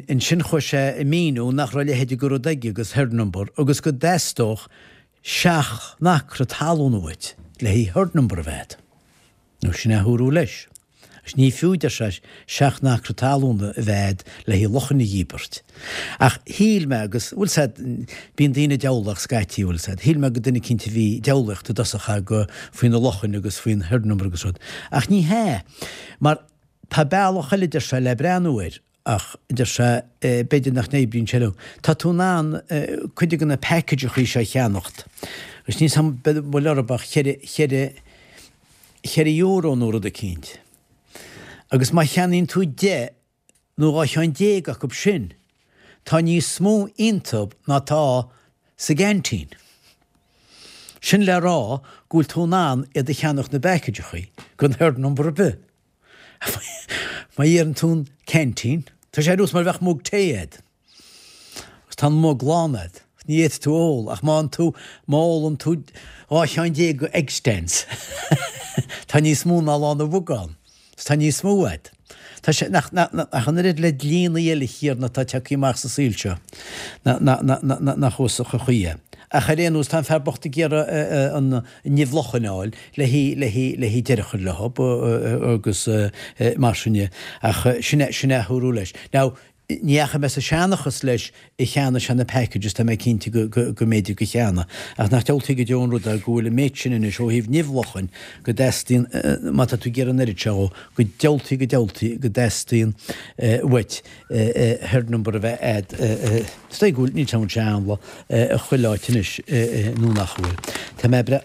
B: ansin chuaigh sé ag míniú nach raibh a leithéid de rud aige agus herd number agus go dteastódh seacht n-acra talún uait le haghaidh herd number a bheith agat. Nó sin é a dúradh leis. Agus ní fiú, deir sé, seacht n-acra talún a bheith agat le haghaidh luchain a dhíbirt. Ach shíl mé, agus, bhfuil 's a'd, bíonn daoine diabhlach scaití, bhfuil 's a'd, shíl mé gur duine eicínt a bhí diabhlaíocht i dtosach aige faoi na luchain agus faoin herd number agus rud. Ach ní hea. Mar tá bealach eile, deir sé, le breathnú air. Ach, a deir sé, b'fhéidir nach n-oibríonn sé leo. Tá tú in ann cuid de na packageachaí seo a cheannacht. Agus níl 's a'm bhfuil orthu ach cheithre, cheithre, cheithre euro nó rud eicínt. Agus má cheannaíonn tú 10 nó 12 cheann acu sin, tá níos mó iontu ná tá sa gceaintín. Sin le rá go bhfuil tú in ann iad a cheannacht na bpackageachaí gan herd number ar bith. Má iarrann tú an ceaintín, tá sé ar nós mar a bheadh mug tae a'd. Agus tá an mug lán a'd. Ní fhéadfaidh tú a ól, ach má tú, má ólann tú 12 cheann de Egg-Stance, tá níos mó ná lán an mhuga ann. Is tá níos mó a'd. Tá sé, nach, nach, nach an oiread le dlíonnaí eile chéarna atá tagtha amach sa saol seo, nach, nach, nach, nach uasach an chaoi é. Ach ar aon nós, tá an fear bocht ag iarraidh an, nimh luchain a fháil le haghaidh, le haghaidh, le haghaidh deireadh a chur leo agus mar sin de. Ach sin é, sin é a dúradh leis. Now, ní dheachaigh mé sa seanchas leis a cheannaigh sé na packages, tá mé cinnte go, go, go mb'fhéidir gur cheannaigh. Ach nach diabhaltaí go deo an rud é go bhfuil an méid sin anois ó thaobh nimh luchain go dteastaíonn, má tá tú ag iarraidh an oiread seo dhó, go diabhaltaí, go diabhaltaí go dteastaíonn uait herd number a bheith a'd. Is dóigh go bhfuil, níl sé ann i chuile áit anois nó nach bhfuil. Tá mé bre,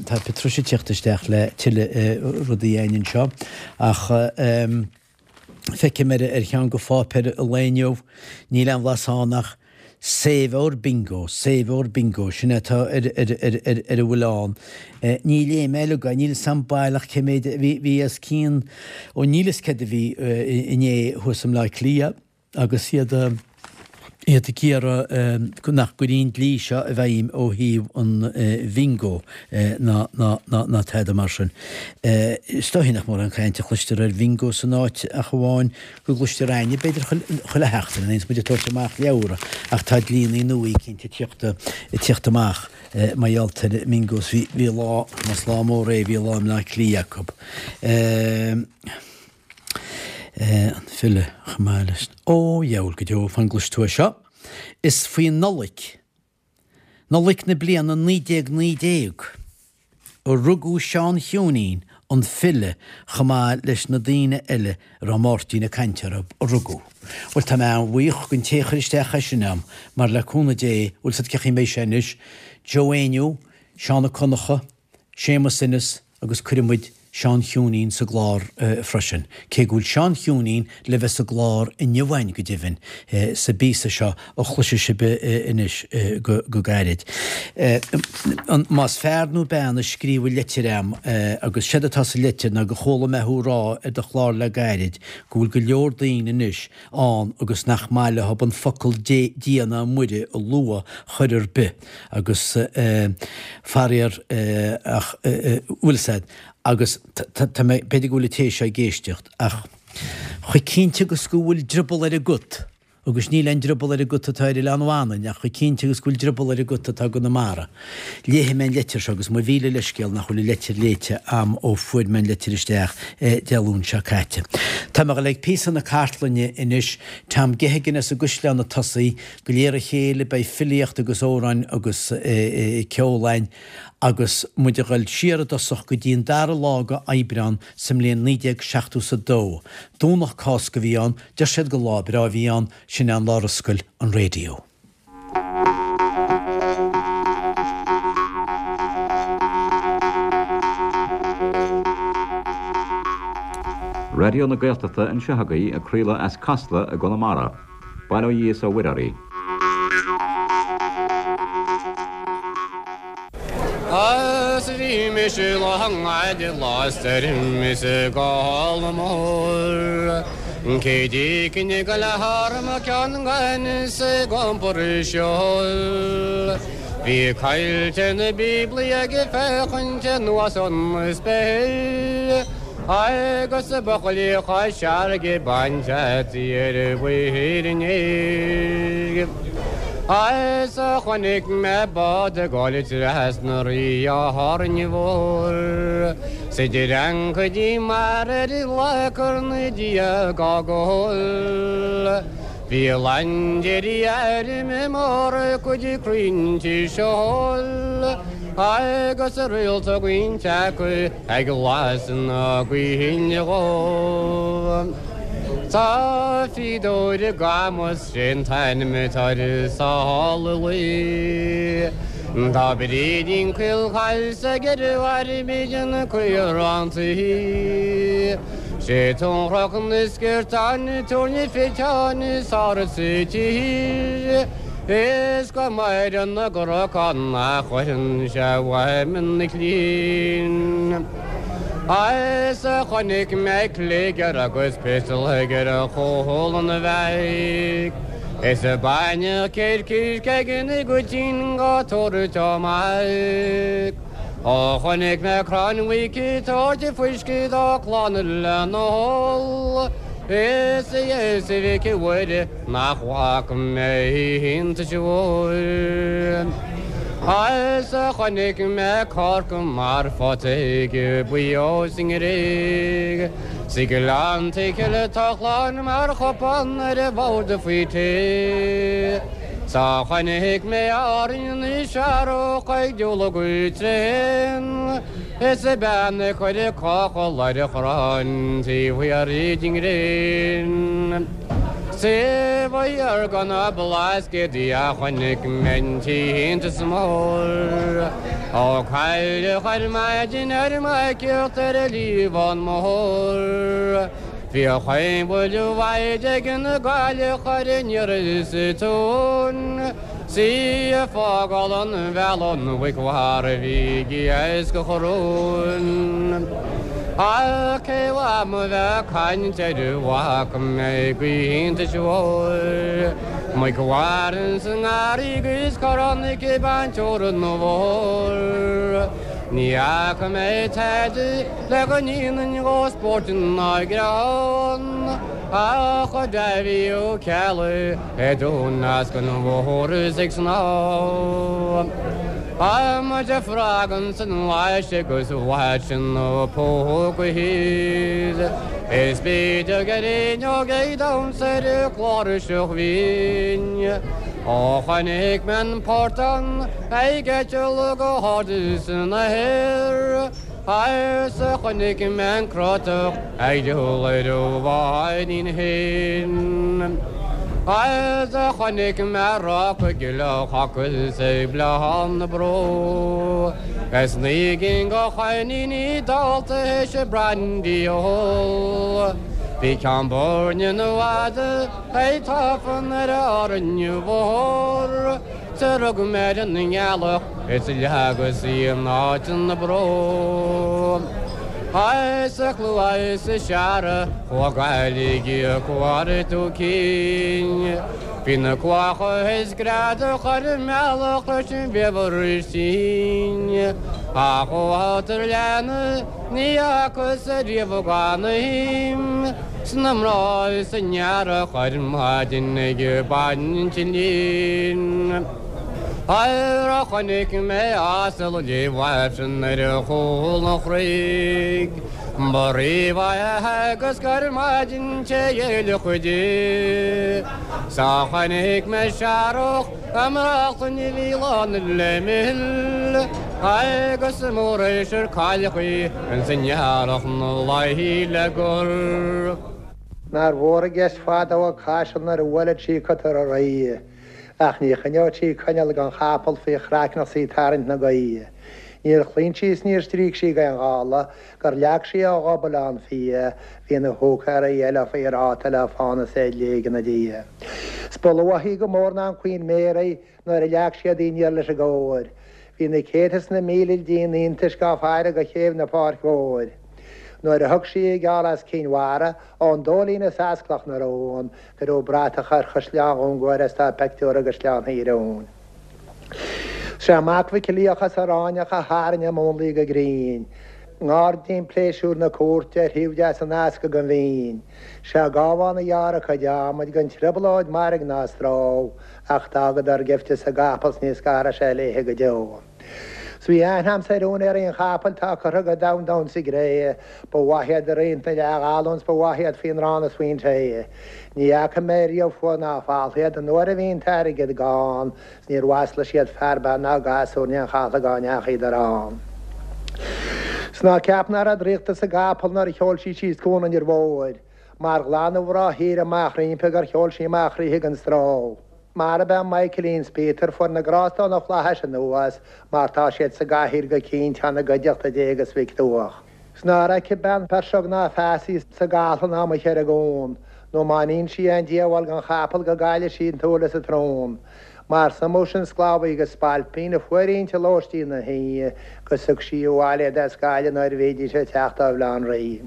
B: tá Patricia ag tíocht isteach le tuilleadh rudaí againn anseo ach feicim ar ar cheann de pháipéir an lae inniu, níl aon bhlas ann ach Save Our Bingo, Save Our Bingo, sin é atá ar ar ar ar ar a bhfuil ann. Ní léigh mé uilig é, níl 'fhios a'm baileach cé méid a bhí, bhí os cionn, ó níl 'fhios céard a bhí inné thuas i mBleá Cliath. agus iad iad ag iarraidh nach gcuirfí an dlí seo i bhfeidhm ó thaobh an bhingo ná ná ná ná tada mar sin. Is dóichí nach mórán cainte a chloistear ar bhingo san áit ach amháin go gcloistear againne b'fhéidir chuile sheachtain nuair a bhíonns muid ag tabhairt amach leabhra ach tá dlíonnaí nua eicínt ag tíocht ag tíocht amach mar gheall ar bhingos. Bhí bhí lá más lá mór é bhí lá i mBleá Cliath acu. An file chomh maith leis. Ó, dheabhail go deo, fan go gcloisfidh tú é seo. Is faoi Nollaig, Nollaig na bliana 1919, a rugadh Seán Chiúinín, an file, chomh maith leis na daoine eile a raibh Máirtín ag caint orthu, a rugadh. Bhuel, tá mé an-bhuíoch den té a chuir isteach é sin a'm, mar le cúnamh Dé, bhfuil 's a'd cé chaoi a mbeidh sé anois, Joe Éinniú, Seán Ó Conchadha, Séamus Ennis agus cuirfidh muid. Seán Chiúinín sa gclár freisin, cé go bhfuil Seán Chiúinín le bheith sa gclár inniu againn, go deimhin, sa bpíosa seo a chloisfidh sibh anois go gairid. Más fear nó bean a scríobh an litir a'm, agus séard atá sa litir ná go chuala mé thú rá ar do chlár le gairid go bhfuil go leor daoine anois ann agus nach maith leo an focal Dia ná Muire a lua chor ar bith agus faraor ach bhfuil 'fhios a'd agus tá mé b'fhéidir go bhfuil an té seo ag éisteacht ach chomh cinnte agus go bhfuil drioball ar an gcut agus níl aon drioball ar an gcut atá ar Oileán Mhanainn ach chomh cinnte agus go bhfuil drioball ar an gcut atá i gConamara. Léifidh mé an leitir seo agus mo mhíle leithscéal nach bhfuil an leitir léite a'm ó fuair mé an leitir isteach Dé Luain seo caite. Tá mé ag dul ag píosa na cartlainne anois, Tom Geoghegan as an gCaisleán ag tosaí, de réir a chéile beidh filíocht agus amhráin agus ceol a'inn agus muid ag dul siar i dtosach go dtí an dara lá de Aibreán sa mbliain 1972. Domhnach Cásca a bhí ann, deir siad gur lá breá a bhí ann, sin é an lá ar oscail an raidió.
D: Raidió na Gaeltachta anseo agaibh ag craoladh as Casla i gConamara. Bail ó Dhia is ó Mhuire oraibh.
E: Is bhí mise lá i lá stoirm is i gcáil mór. Cé d'éigin go le harm ceann gan is ag iompar seol. Bhí caillte na bíoblaí ag féachaint anuas ón spéir. Agus ba choiligh searg ag baint ar mhuir inné. Is chonaic mé bád ag dul trasna rí Árainn Mhór 's idir ancaidí mar ar ghlac na Dia gá gol. Bhí laindéirí airm mór cuid crainnte seol agus réalta roinnt acu Ag lasadh na gaoithe dhó. Tá fíodóir i gCamus sé'n t-ainm atá air sála luí. Tá Brídín Caolchaille 's ag ar mhair an caorán tuí. Sé tionrach na sciortáin tabhairne fiteáin sár sa tír. Is go maireann na gcnocán nach gcuireann sé uaim na cinn. Is chonaic mé cligear agus pistol ag ar chúl an bheairic. Is baineadh coirce ag na gcuitín go tabhairt amach. Ó chonaic mé crann mhuic ag tabhairt fuisce dá clann lena hól. Is a Íosa Mhic Mhuire Nach bhfaca mé iontais mhór. Is chonaic mé corca mar phota ag buíó sa nGréig. 'S i nGleannta Chille tochlán mar chupán ar an bhord faoi tae. 'S chonaic mé Árainn na searrach ag diúl go tréan. Is bean ag cur cochall ar a chrann taobh thiar den ghréin. Taobh thiar de na Blascaodaí a chonaic mé an t-iontas mór. Ó cailleadh ar maidin ar m'aicíocht ar an Liamhán Mór. Bhí a chaon bhuille mhaith ag an gcailleach ar an iarraidh sa tóin. 'S í ag fágáil an bhealaigh an mhuic mharbh a bhí ag iascach rúin. Ach cé uaim a bheith ag caint ar a bhfaca mé go hiontais mhóir. Muic mharbh insa ngarraí agus corrán aici ag baint teorann na bhfómhar. Ní fhaca mé tada le go ndéanfainn dhó spórt ná greann ach Dáibhí Ó Ceallaigh Ag dún as an bhóthar is ag snámh. Tá muid ag frog san lais agus bhaid sin na póga thíos. Is b'fhéidir gur fhuinneog ag damhsa ar an chláirseach bhinn. Ó chonaic mé an portán ag eitilt go hard san aer. Is chonaic mé an crotach ag dul ar a bháidín féin. Is a chonaic mé ráca gile chapaill 's ag Bleán na Bró Is na gcinn de choiníní dálta théis a brandy a ól Bhí ceann Boirne na bhfada ag tafann ar Árainn Mhór 'S a rug mé ar an ngealach is a leagas í in áit na bró. Is a chluais is searra chuaigh Gaillimh ag cuartú cinn. Bhí na cuacha is greadadh ar an mbealach leis an bhfaobhar tinn. Ach ó fhátar leanna ní fhacas ariamh gan a shuim sna mná is an earrach ar maidin ag baint an lín. Nuair a chonaic mé asal léimh ar chúl an chnoic, ba rímhaith é agus gur maidin te fhéile di. 'S a chonaic mé searrach i mbrachlann a bhí lán le mil, agus mór is ar cailleadh í ins an earrach 'na luí le gol.
F: Nár mhór an gceist fadó ag Caiseal nuair a bhuaileadh sí cotar a rí. Ach ní choinneodh sí coinneal gan chapall faoi chraiceann 's í tarraingt na gaoithe. Níor chlaon sí is níor stríoc sí d'aon ghála gur leag sí ó ghob Oileán Fia, bhí na húicéirí eile faoi ráta le fána 's é ag léigean 'na diaidh. 'S ba luath í go mór ná an Queen Mary nuair a leag siad í aniar leis an gcóir. Bhí na céadta is na míle díon iontais gá faire go chéibh na Páirc Mhóir. Nuair a thug sí a geall as Cinn Mhara, ón Dóilín is as Cloch na Rón, Cuireadh bratach ar Chaisleán Dhún Guaire is tá peictiúr i gCaisleán Thír Eoghain. 'Sé mac Mhic Liach as Aráinneach a tharraing a múnlaí go grinn. I nGairdín Pléisiúir na Cúirte ar thaobh deas an easca den Mhín. 'Sé Gábhán a ghearr a cuid adhmaid gan trioblóid mairg ná stró ach d'fhágadar gaibhte sa gcapall 's ní scarfaidh sé léithe go deo. 'S bhí aithne a'msa ar úinéirí an chapaill tá curtha go domhain domhain sa gcré. Ba mhaith iad i roinnt na leathghallún 's ba mhaith iad faoin arán is faoin tae. Ní fhaca mé riamh fuath ná falltha iad an uair a bhí an t-airgead gann 's níor mhaslaigh siad fear bean ná gasúr in aon chathlach dá ndeachaíodar ann. 'S ná ceap ná raibh draíocht sa gcapall nuair a sheol sí síos Cuan an Fhir Mhóir. Mar ghlan an mhná thíre amach roimpi gur sheol sí amach roimpi gan stró. Marab é Michaelín 's Peter fuair na grásta ó na flaithis anuas mar tá siad sa gcathaoir go cinnte ina gcuideachta Dé agus Mhic Dúach. 'S nár fheice bean peirseog ná feasaí sa gcathlán amuigh ar an gcuan, nó má níonn sí aon díobháil don chapall go gcailleadh sí an tsúil is an tsrón. Mar suimeodh sin sclábhaí agus spailpín a fuair inti lóistín na hoíche 'gus thug sí abhaile iad as Gaillimh nuair a bhídís ag teacht ó Bhaile Átha an Rí.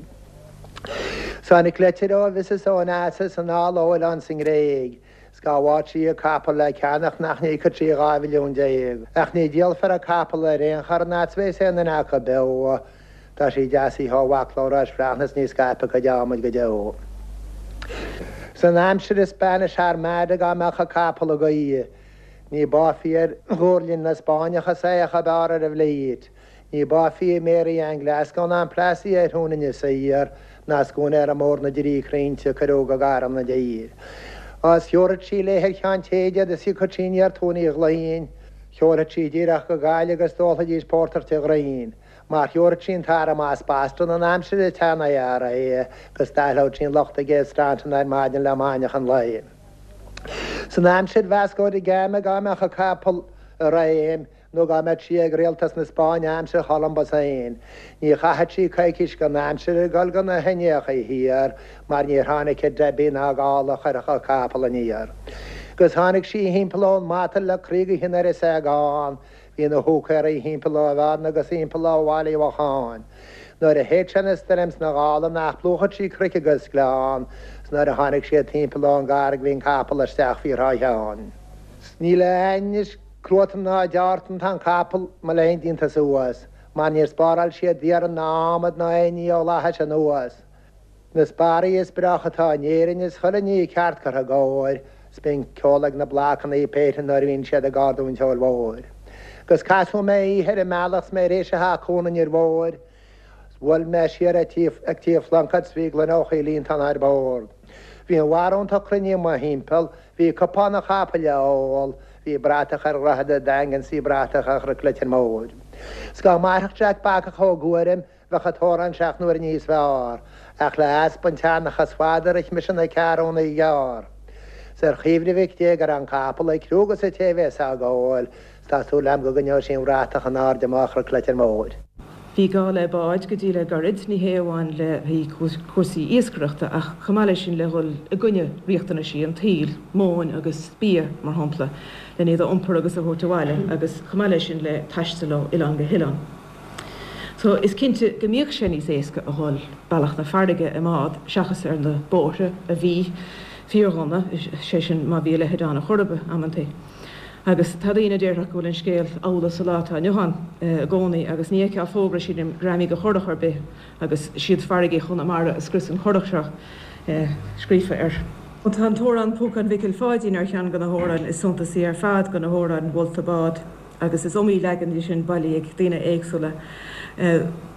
F: 'S tháinig leitir ó Mhrs Onassis anall ó oileán sa nGréig. 'S dhá bhfaigheadh sí a capall le ceannach nach n-íocfadh sí 12 mhilliún. Ach ní dhíolfar a capall ar aon chor an fhad 's bheas aon duine acu beo. Tá sí deasaithe ó bhacla Rois Bhreathnach 's ní scaipfidh a cuid adhmaid go deo. San aimsir an Spanish Armada dhá mbeadh a capall ag gaoth, ní báithfí ar ghuairlinn na Spáinneach is é a b'fhearr ar an bhflít. Ní báithfí i Mary Ann Glasgow ná an Plassey ar thún Inis Oírr ná scuaine mór na dTrí Crainnte a cuireadh go gairm na dtír. Is thiúrfadh sí léi ar Cheann Téide iad is thiocfadh sí aniar Tóin Uí Ghloinn. Sheolfadh sí díreach go Gaillimh agus d'ólfaidís pórtar tigh Ghraín. Mar thiúrfadh sí an t-arm as Boston an aimsir an tsean-IRA agus d'aithleodh sí an lucht ag Abe Staunton ar maidin le maidneachan lae. San aimsir Vasco da Gama dhá mbeadh a capall i réim, nó dhá mbeadh sí ag rialtas na Spáinne aimsir Cholumbus féin, ní chaithfeadh sí coicís den aimsir ag dul go na hIndiacha Thiar mar níor tháinig a Debbie ná gála a chuirfeadh a capall aniar. Agus tháinig sí thimpeall ón Matail le croí go tinn ar a seagán, bhí na húicéirí thimpeall ó Bhearna agus thimpeall ó Bhaile Uí Mhocháin. Nuair a shéid sé na stoirm sna gála nach bplúchfadh sí cnoic agus gleann, 's nuair a tháinig siad thimpeall ón gCarraig bhí an capall isteach faoi Thrá Sheáin. 'S níl a ainnis Cruatan ná deártan tá an capall, mo léan, déanta suas, mar níor spáráil siad iarann ná adhmad ná aon ní ó fhlaithis anuas. Na sparraí is breácha atá in Éirinn is chuile ní ceart curtha i gcóir, 's bíonn ceol ag na blocannaí péinte nuair a bhíonn siad ag ardú an tseoil mhóir. 'Gus casadh mé oíche ar an mbealach 's mé tar éis a theacht Cuan an Fhir Mhóir, 's bhuail mé siar ag tigh Phlunkett 's bhí gloine ó Choill Fhiontán ar bord. Bhí an bharúntacht cruinnithe mo thimpeall, bhí cupán an chapaill á ól, bhí bratach ar Dhroichead an Daingin 's bhí bratach ar Chnoc Leitir Móir. 'S dá mairfeadh Jack Bacach Ó Guairim bheadh an t-amhrán seacht n-uaire níos fearr, ach le easpa an tseanchas fada rith mise na ceathrúna ghearr. 'S ar chuimhne Mhic Dé go raibh an capall ag crú 'gus an té a bheas á ghabháil, 's tá súil a'm go gcoinneoidh sí an bhratach in airde amach ar Chleitir Móir.
G: Bhí gá le báid go dtí le gairid, ní hé amháin le haghaidh cúrsaí iascaireachta ach chomh maith leis sin le dhul i gcoinne riachtanaisí an tsaoil, móin agus bia, mar shampla, len iad a iompar agus a thabhairt abhaile agus chomh maith leis sin le taisteal ó oileán go hoileán. So is cinnte go mbíodh sé níos éasca a dhul bealach na farraige i mbád seachas ar na bóithre a bhí fíordhona, sé sin má bhí a leithéid ann ar chor ar bith, amantaí. Agus tá daoine a déarfadh go bhfuil an scéal amhlaidh sa lá atá inniu ann i gcónaí agus ní fheicfeá fógra sílim greamaigh do churach ar bith agus siad farraigí Chonamara a scrios an churach seo scríofa air. Tá an t-amhrán Púcán Mhicil Pháidín ar cheann de na hamhráin is suntasaí ar fad de na hamhráin mholta bád. agus is iomaí leagan de sin bailithe ag daoine éagsúla.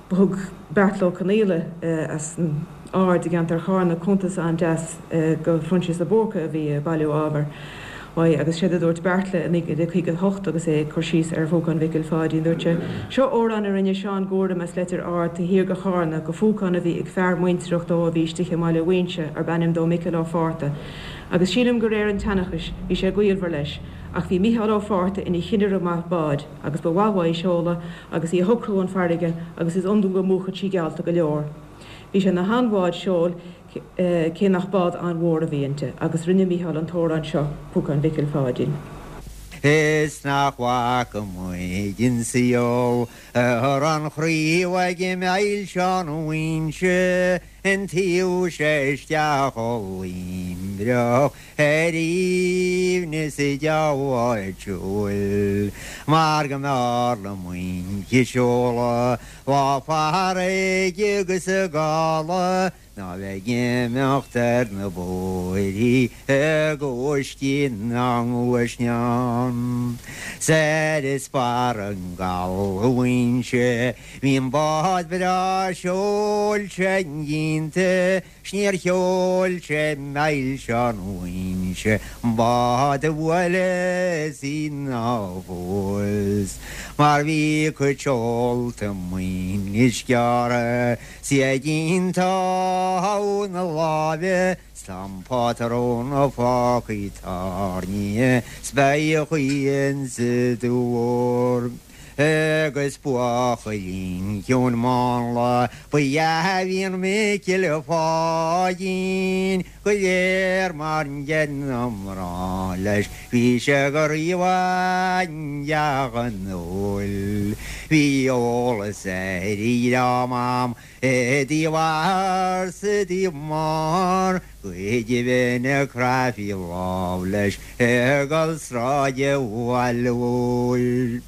G: Thug Beartla Ó Conaola as an Aird i gceantar Charna cuntas an-deas go Phroinsias de Búrca a bhí ag bailiú ábhair uaidh agus séard a dúirt Beartla i 1958 agus é ag cur síos ar Phúcán Mhicil Pháidín, dúirt sé, Seo amhrán a rinne Seán Guairim as Leitir Ard taobh thiar de Chárna go phúcán a bhí ag fear muintireach dó a bhí istigh i mBaile Mhuínse arb ainm dó Micil Ó Fátharta agus sílim go réir an tseanchais bhí sé gaolmhar leis Ach bhí Micheál Ó Fátharta ina chinnire maith báid agus ba mhaith uaidh seoladh agus í a shocrú 'un farraige agus is iondúil go múchfadh sí geallta go leor. Bhí sé 'na han-bhád seoil cé nach bád an-mhór a bhí inti agus rinne Micheál an t-amhrán seo, Púcán Mhicil Pháidín.
H: Is nach bhfaca muid an saol ar an chraobh ag Milseán Mhuínse an taobh seo isteach ó Luimneach ar aoibhneas a deabháil mar go mb'fhearr liom muince seoladh lá farraige agus i gcaladh ná bheith ag imeacht ar na bóithrí ag uiscí na ngluaisneán. 'S ar fheasbarr an gcaladh Mhuínse bhí an bád breá seoil sin ínte 'S níor sheol sé Milseán Mhuínse an bád a bhuaileas í ná fós mar bhí a cuid seolta muinis gearrtha 's í ag iontá na láimhe 's tá an pátrún fágtha tairnithe 's beidh a chaoi insa dúr. Agus buachaillín ciúin mánla ba ea a bhí in Micil Pháidín go léir mar an gcéanna mná leis bhí sé go rímhaith i dteach an óil. Bhí eolas ar a dhream a'm i dtaobh athar 's i dtaobh máthar go deimhin a chraithfí lámh leis ag dul sráide Bhaile Mhóir.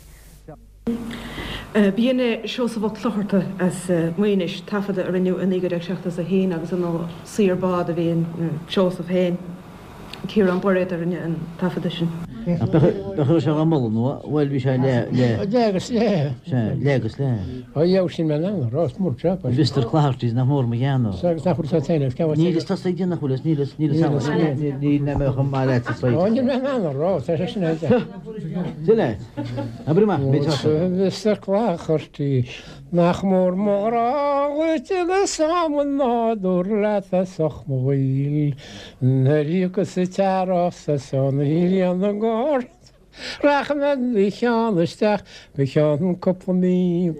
G: B'in é Seosamh Ó Clochartaigh as Maínis, taifeadadh a rinneadh i 1971 agus ar ndóigh saor bád a bhí in Seosamh féin. Ciarán Bairéad a rinne an taifeadadh sin.
B: Ach bheadh sé á moladh nó, bhuel, bhí sé le, le.
I: Le agus le.
B: Sea, le agus le.
I: Ó dheabhail sin mé in ann a rá, is mór job é.
B: Mr Cloherty's nach mór mo ghean.
I: Sea, agus nach bhfuil fhios agat féin, agus
B: Níl fhios tusa ag déanamh nach bhfuil fhios, níl fhios, níl fhios agam, níl mé chomh maith leat sa
I: Ó, níl mé in ann a rá, tá sé sin ag.
B: Sin leat. Abair amach, beidh tusa.
I: Mr Cloherty, nach mór mo ghrá dhuit agus am an nádúr leat as ucht mo bhaoil. Nuair a thiocfas an t-earrach 's an ghrian ag ardú rachaidh mé do cheann isteach go ceann cúpla mí.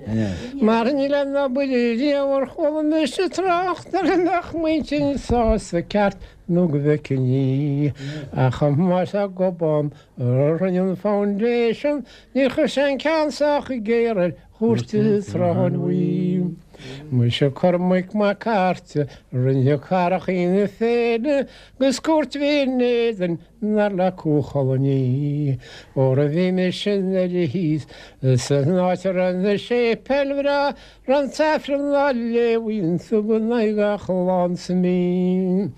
I: Mar níl aon obair riamh ar chuala mise trácht uirthi a mbeadh m'intinn sásta ceart nó go bhfeicfinn í. Ach chomh maith le Gobán a rinne an foundation níor chuir sé an ceann sách géar ar chúirt an tSrutháin Bhuí. Muise Cormac Mac Airt a rinne carachaí na féile 'gus cúirt a bhí in éadan dar le Cú Chulainn í. Óra bhí mise i nDoire thíos san áit a raibh na séipéil bhreá raibh an tAifreann á léamh iontu in aghaidh gach lá sa mí.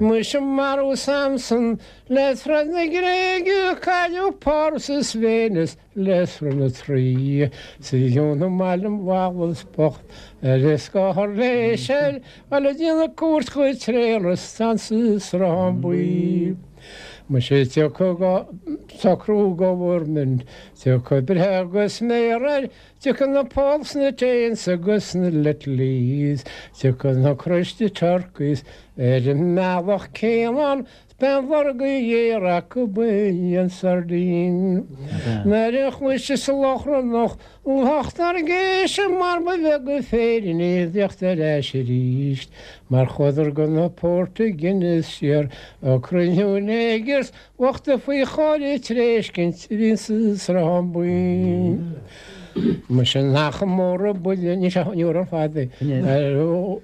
I: Muise marbhadh Samson le troid na Gréige cailleadh Páras is Véineas le sruth na Traí 's a dheonaigh maith liom Wallace bocht ar a scáth ar léis air a le déanamh cuairt go Tréaras ansa Sruthán Buí. Muise tiocfaidh socrú government, tiocfaidh breith agus méar air, tiocfaidh na Poles na Danes agus na Littlies, tiocfaidh na Christy Turkeys ar an mbealach céanna. B'é an lorg a ghéar acu b'in an sardine. Nuair a chloiseas lochrannach lucht ár gcéise mar ba bheag an féirín é a thíocht ar ais arís mar chuadar go na Portaingéile siar ag cruinniú neigers bochta faoi chóir a tréiscint a bhí sa Sruthán Buí. Muise nach mór an buille, ní ar fad é,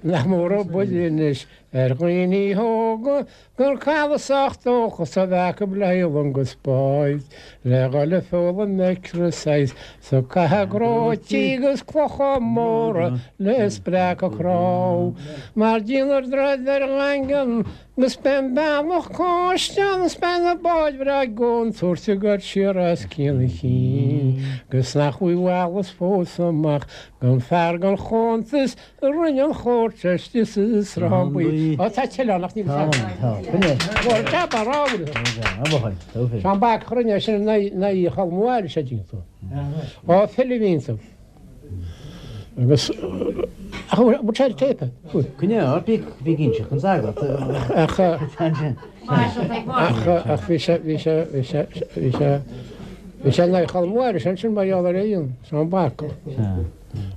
I: nach mór an buille anois ar dhaoine óga gur cailleadh sách dóchas a bheith acu le haghaidh long is báid, le dhul ag foghlaim exercise 's ag caitheamh gróití agus clocha móra le spreacadh cnámh. Mar déanfar droichead ar an nDaingean 'gus beidh an bealach cóiste ann 's beidh na báid bhreá i gcontúirt ag goil siar as cionn a chinn 'gus nach bhfuil Wallace fós amach gan fear gan chuntas a rinne an chúirt istigh sa Sruthán Buí. Ó tá tuilleadh ann ach níl fhios agam. Tá, tá. Tá, tá. Seán Bacach a rinne é sin in aghaidh Cholm Mháire sé díonta. Ó file a bhí iontu. Agus ach bhfuil sé ar téip?
B: Coinne ort, bí bí ag inseacht an sagart.
I: Ach ach ach bhí sé bhí sé bhí sé bhí sé bhí sé in aghaidh Cholm Mháire sin sin mar gheall ar aon Seán Bacach.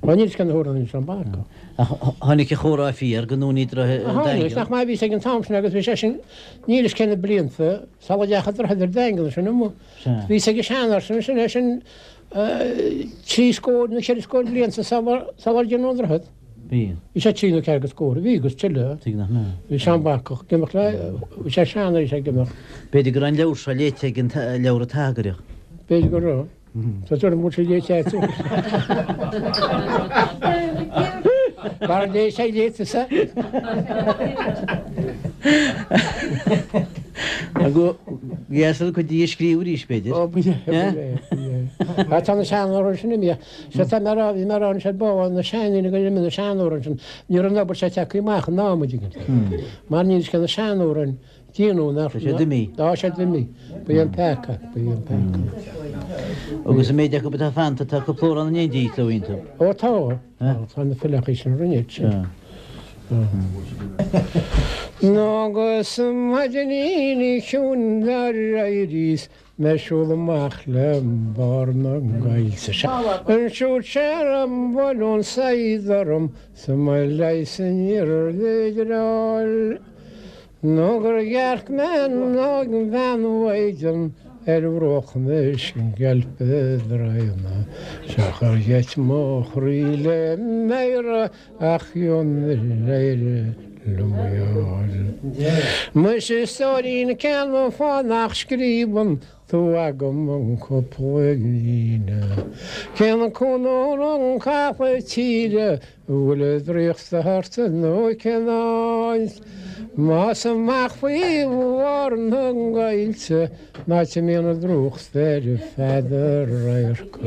I: Ó níl fhios cén uair a rinne Seán Bacach.
B: Ach tháinig a chomhrá fíor go ndúnaí droichead an
I: Tháinig, nach maith a bhí sé ag an t-am sin agus bhí sé sin, níl fhios cé na blianta sula ndeachaigh droichead ar Daingean sin amuigh. Bhí sé ag an seanfhear sin, sin é sin trí scór nó cheithre scór blianta sular déanadh an droichead.
B: Bhí.
I: Bhí sé trí nó ceathair go scór, bhí agus tuilleadh.
B: Tuig nach mbeadh.
I: Bhí Seán Bacach ag imeacht le, bhí sé sean bhí sé ag imeacht.
B: B'fhéidir go raibh an leabhar seo léite ag an leabhar an tSagairt.
I: B'fhéidir go raibh. Tá tuairim go bhfuil sé léite agat. Mar léigh sé léite sa.
B: Go dheas an cuid de a scríobh arís, b'fhéidir.
I: Ó, b'fhéidir, b'fhéidir. Tá na seanamhráin sin imithe. Sea, tá mé a rá, bhí mé a rá anois ar ball, na seandaoine go raibh na seanamhráin sin, ní raibh an obair seo tagtha amach in am, an dtuigeann tú. Mar níl fhios cé na seanamhráin. Déanadh nach.
B: Tá siad imithe.
I: Tá siad imithe. Ba é an peaca. Ba é an peaca.
B: Agus an méid acu atá fanta, tá cúpla amhrán in éindí leo iontu.
I: Ó tá. Tá na fileachaí sin rinne iad sin. Agus maidinín chiúin dar éiríos mé siúl amach le barr na gcoillte. Ansiúd sé ar an bhfoluain saighead orm 's mo leigheas níorbh fhéidir a fháil. Nó gur dhearc mé an óig-bhean mhaighdean ar bhruach na sceilpe draíona. Sea chuir gheit mo chroí le méara ach ionadh éire liom í fháil. Muise a stóirín cén fáth nach scríobhann tú agam an cúpla líne? Cén cúnór an capall tíre An bhfuil an draíocht thart nó cén áit? Más amach faoi bharr na gcoillte, an áit a mbíonn an drúcht ar feadh do radhairc,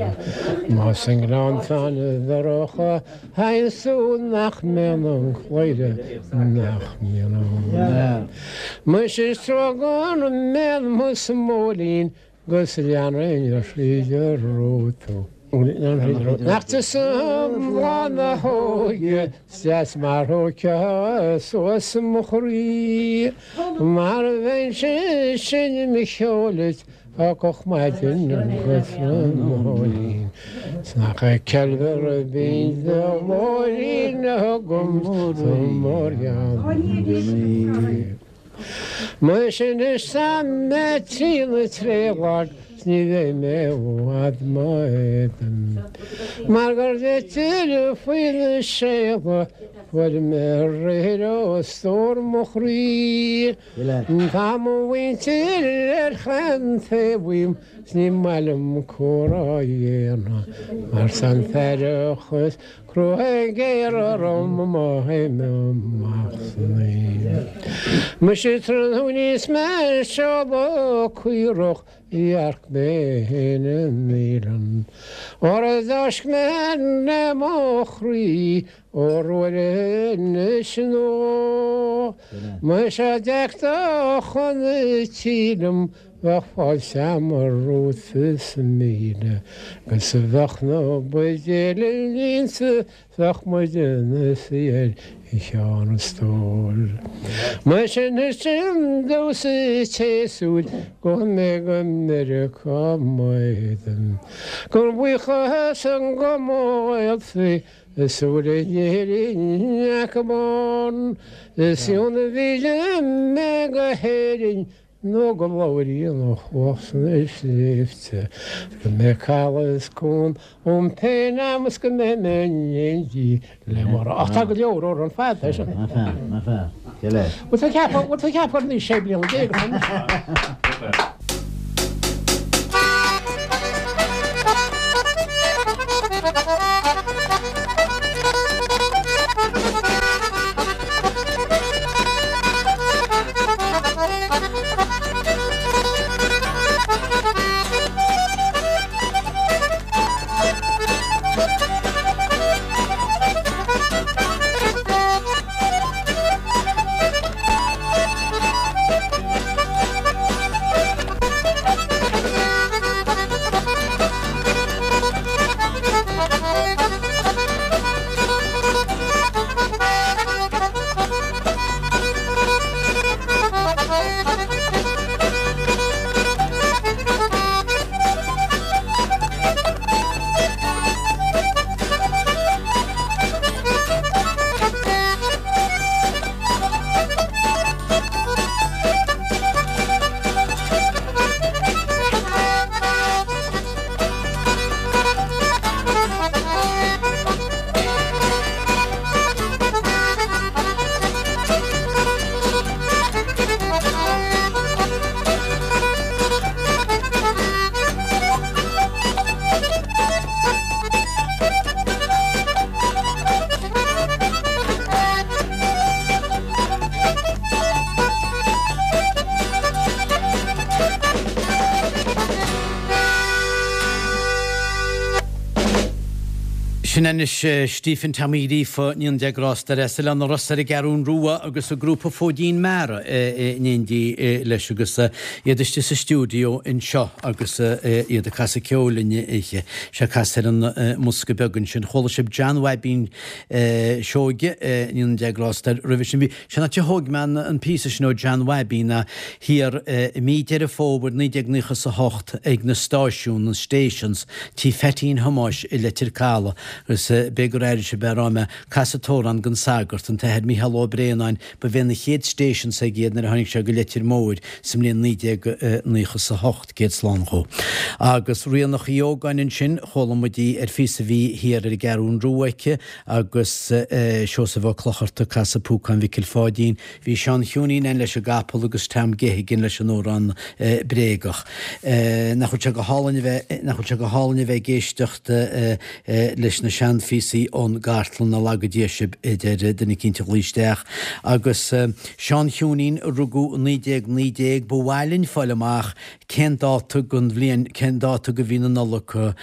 I: más i ngleanntán dorcha théanns tú nach mbíonn an chladhaire, nach mbíonn ann. Muise is trua gan mbíonn mo smóilín 'Gus leanfainn thríd an ró tú. Nach tusa bláth na hóige 's deas mar thóigfeá suas mo chroí Mar a bheinnse ag seinm cheoil duit ó gach maidin go tráthnóinín 'S nach ceilmhear binn do ghlóirín agam sa mórghean. Muise anois tá mé trína tréadlag 's ní bheidh mé i bhfad mo éadan Mar gur d'eitil faoi na séala fuair mé aréir ó stór mo chroí Tá mo mhuintir ar chaon taobh uaim 's ní maith liom comhrá a dhéanamh Mar tá an t-earrach is Crua géar orm má théim amach san oíche. Muise tráthnóna is mé ag seoladh caorach dhearc mé féin i naíolann. Óra d'fháisc mé le mo chroí ór uair anois nó. Muise d'fhéach do chun tí liom. Bheadh fáilte a'm romhat is 1000 Agus bheadh na buidéil líonta Bheadh muid ina suí ar cheann an stóil. Mar sin is sin domhsa an tséasúir go mbeidh go Meiriceá m'éadan. Gan buíochas go mo ghaolta is úr in Éirinn acu bán. Is ionann mhíle mé go hÉirinn Nó go labhraíonn ó chuach sna sléibhte go mbeidh caladh is cuan um pé am is go mbeidh mé in éindí le Máire. Ach tá go leor amhrán fada é sin.
B: Ná fear, ná fear. Cé leis?
I: Bhfuil tú ag ceapadh, bhfuil tú ag ceapadh gur anois 16 bliana atá mise?
B: Sin anois Stephen Tommy Ríofa, níon Dé grásta air, as Oileán na Rosa ar an gCeathrún Rua agus an grúpa Fóidín Meara in éindí leis agus iad istigh sa stiúideo anseo agus iad ag casadh ceoil linn oíche. Sé casadh ar an mbosca beag ansin. Chuala sibh John Bhaibín Seoige, níon Dé grásta air, roimhe sin. Bhí sé an áit a thóg mé an píosa sin ó John Bhaibín ná thiar i mí Deireadh Fómhair 1998 ag na stáisiúin, na stations, tí Pheaitín Thomáis i Leitir Caladh agus b'fhéidir gur airigh sibh a raibh mé ag casadh t-amhrán don sagart, an tAthair Mícheál Ó Braonáin, ba bhé na chéad stations aige iad nuair a tháinig sé go Leitir Móir sa mbliain 1998, céad slán dhó. Agus Ríonach Uí Ógáin ansin, chuala muid í ar phíosa a bhí thiar ar an gCeathrún Rua aici agus Seosamh Ó Clochartaigh ag casadh Púcán Mhicil Pháidín. Bhí Seán Chiúinín ann leis an gcapall agus Tom Geoghegan leis an amhrán bréagach. Nach bhfuil sé go hálainn a bheith, nach bhfuil sé go hálainn a bheith ag éisteacht leis na seanphíosaí ón gcartlann, a laga Dia sibh, a deir duine eicínt a ghlaoigh isteach. Agus Seán Chiúinín, a rugadh i 1919, ba mhaith linn fáil amach cén dáta den bhliain, cén dáta de mhí na Nollag a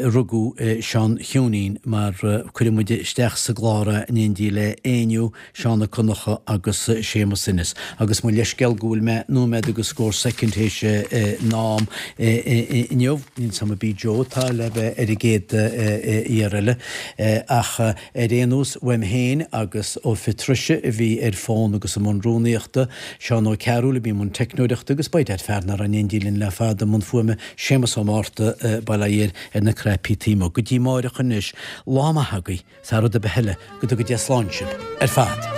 B: rugadh Seán Chiúinín mar cuirfidh muid isteach sa gclár é in éindí le Éinniú, Seán Ó Conchúir agus Séamus Ennis. Agus mo leithscéal go bhfuil mé nóiméad agus scór soicind théis an am inniu, níl 's a'm ab í Joe atá le bheith ar an gcéad fhear eile ach ar aon nós uaim féin agus ó Phatricia a bhí ar fón agus i mbun rúnaíochta, Seán Ó Cearúil a bhí i mbun teicneoireachta agus by dad fear nach raibh in éindí linn le fada i mbun fuaime, Séamus Ó Márta, bail ó Dhia air, ar na cnaipí taobh amuigh. Go dtí amáireach anois, lá maith agaibh, thar rud ar bith eile, go dtuga Dia slán sibh ar fad.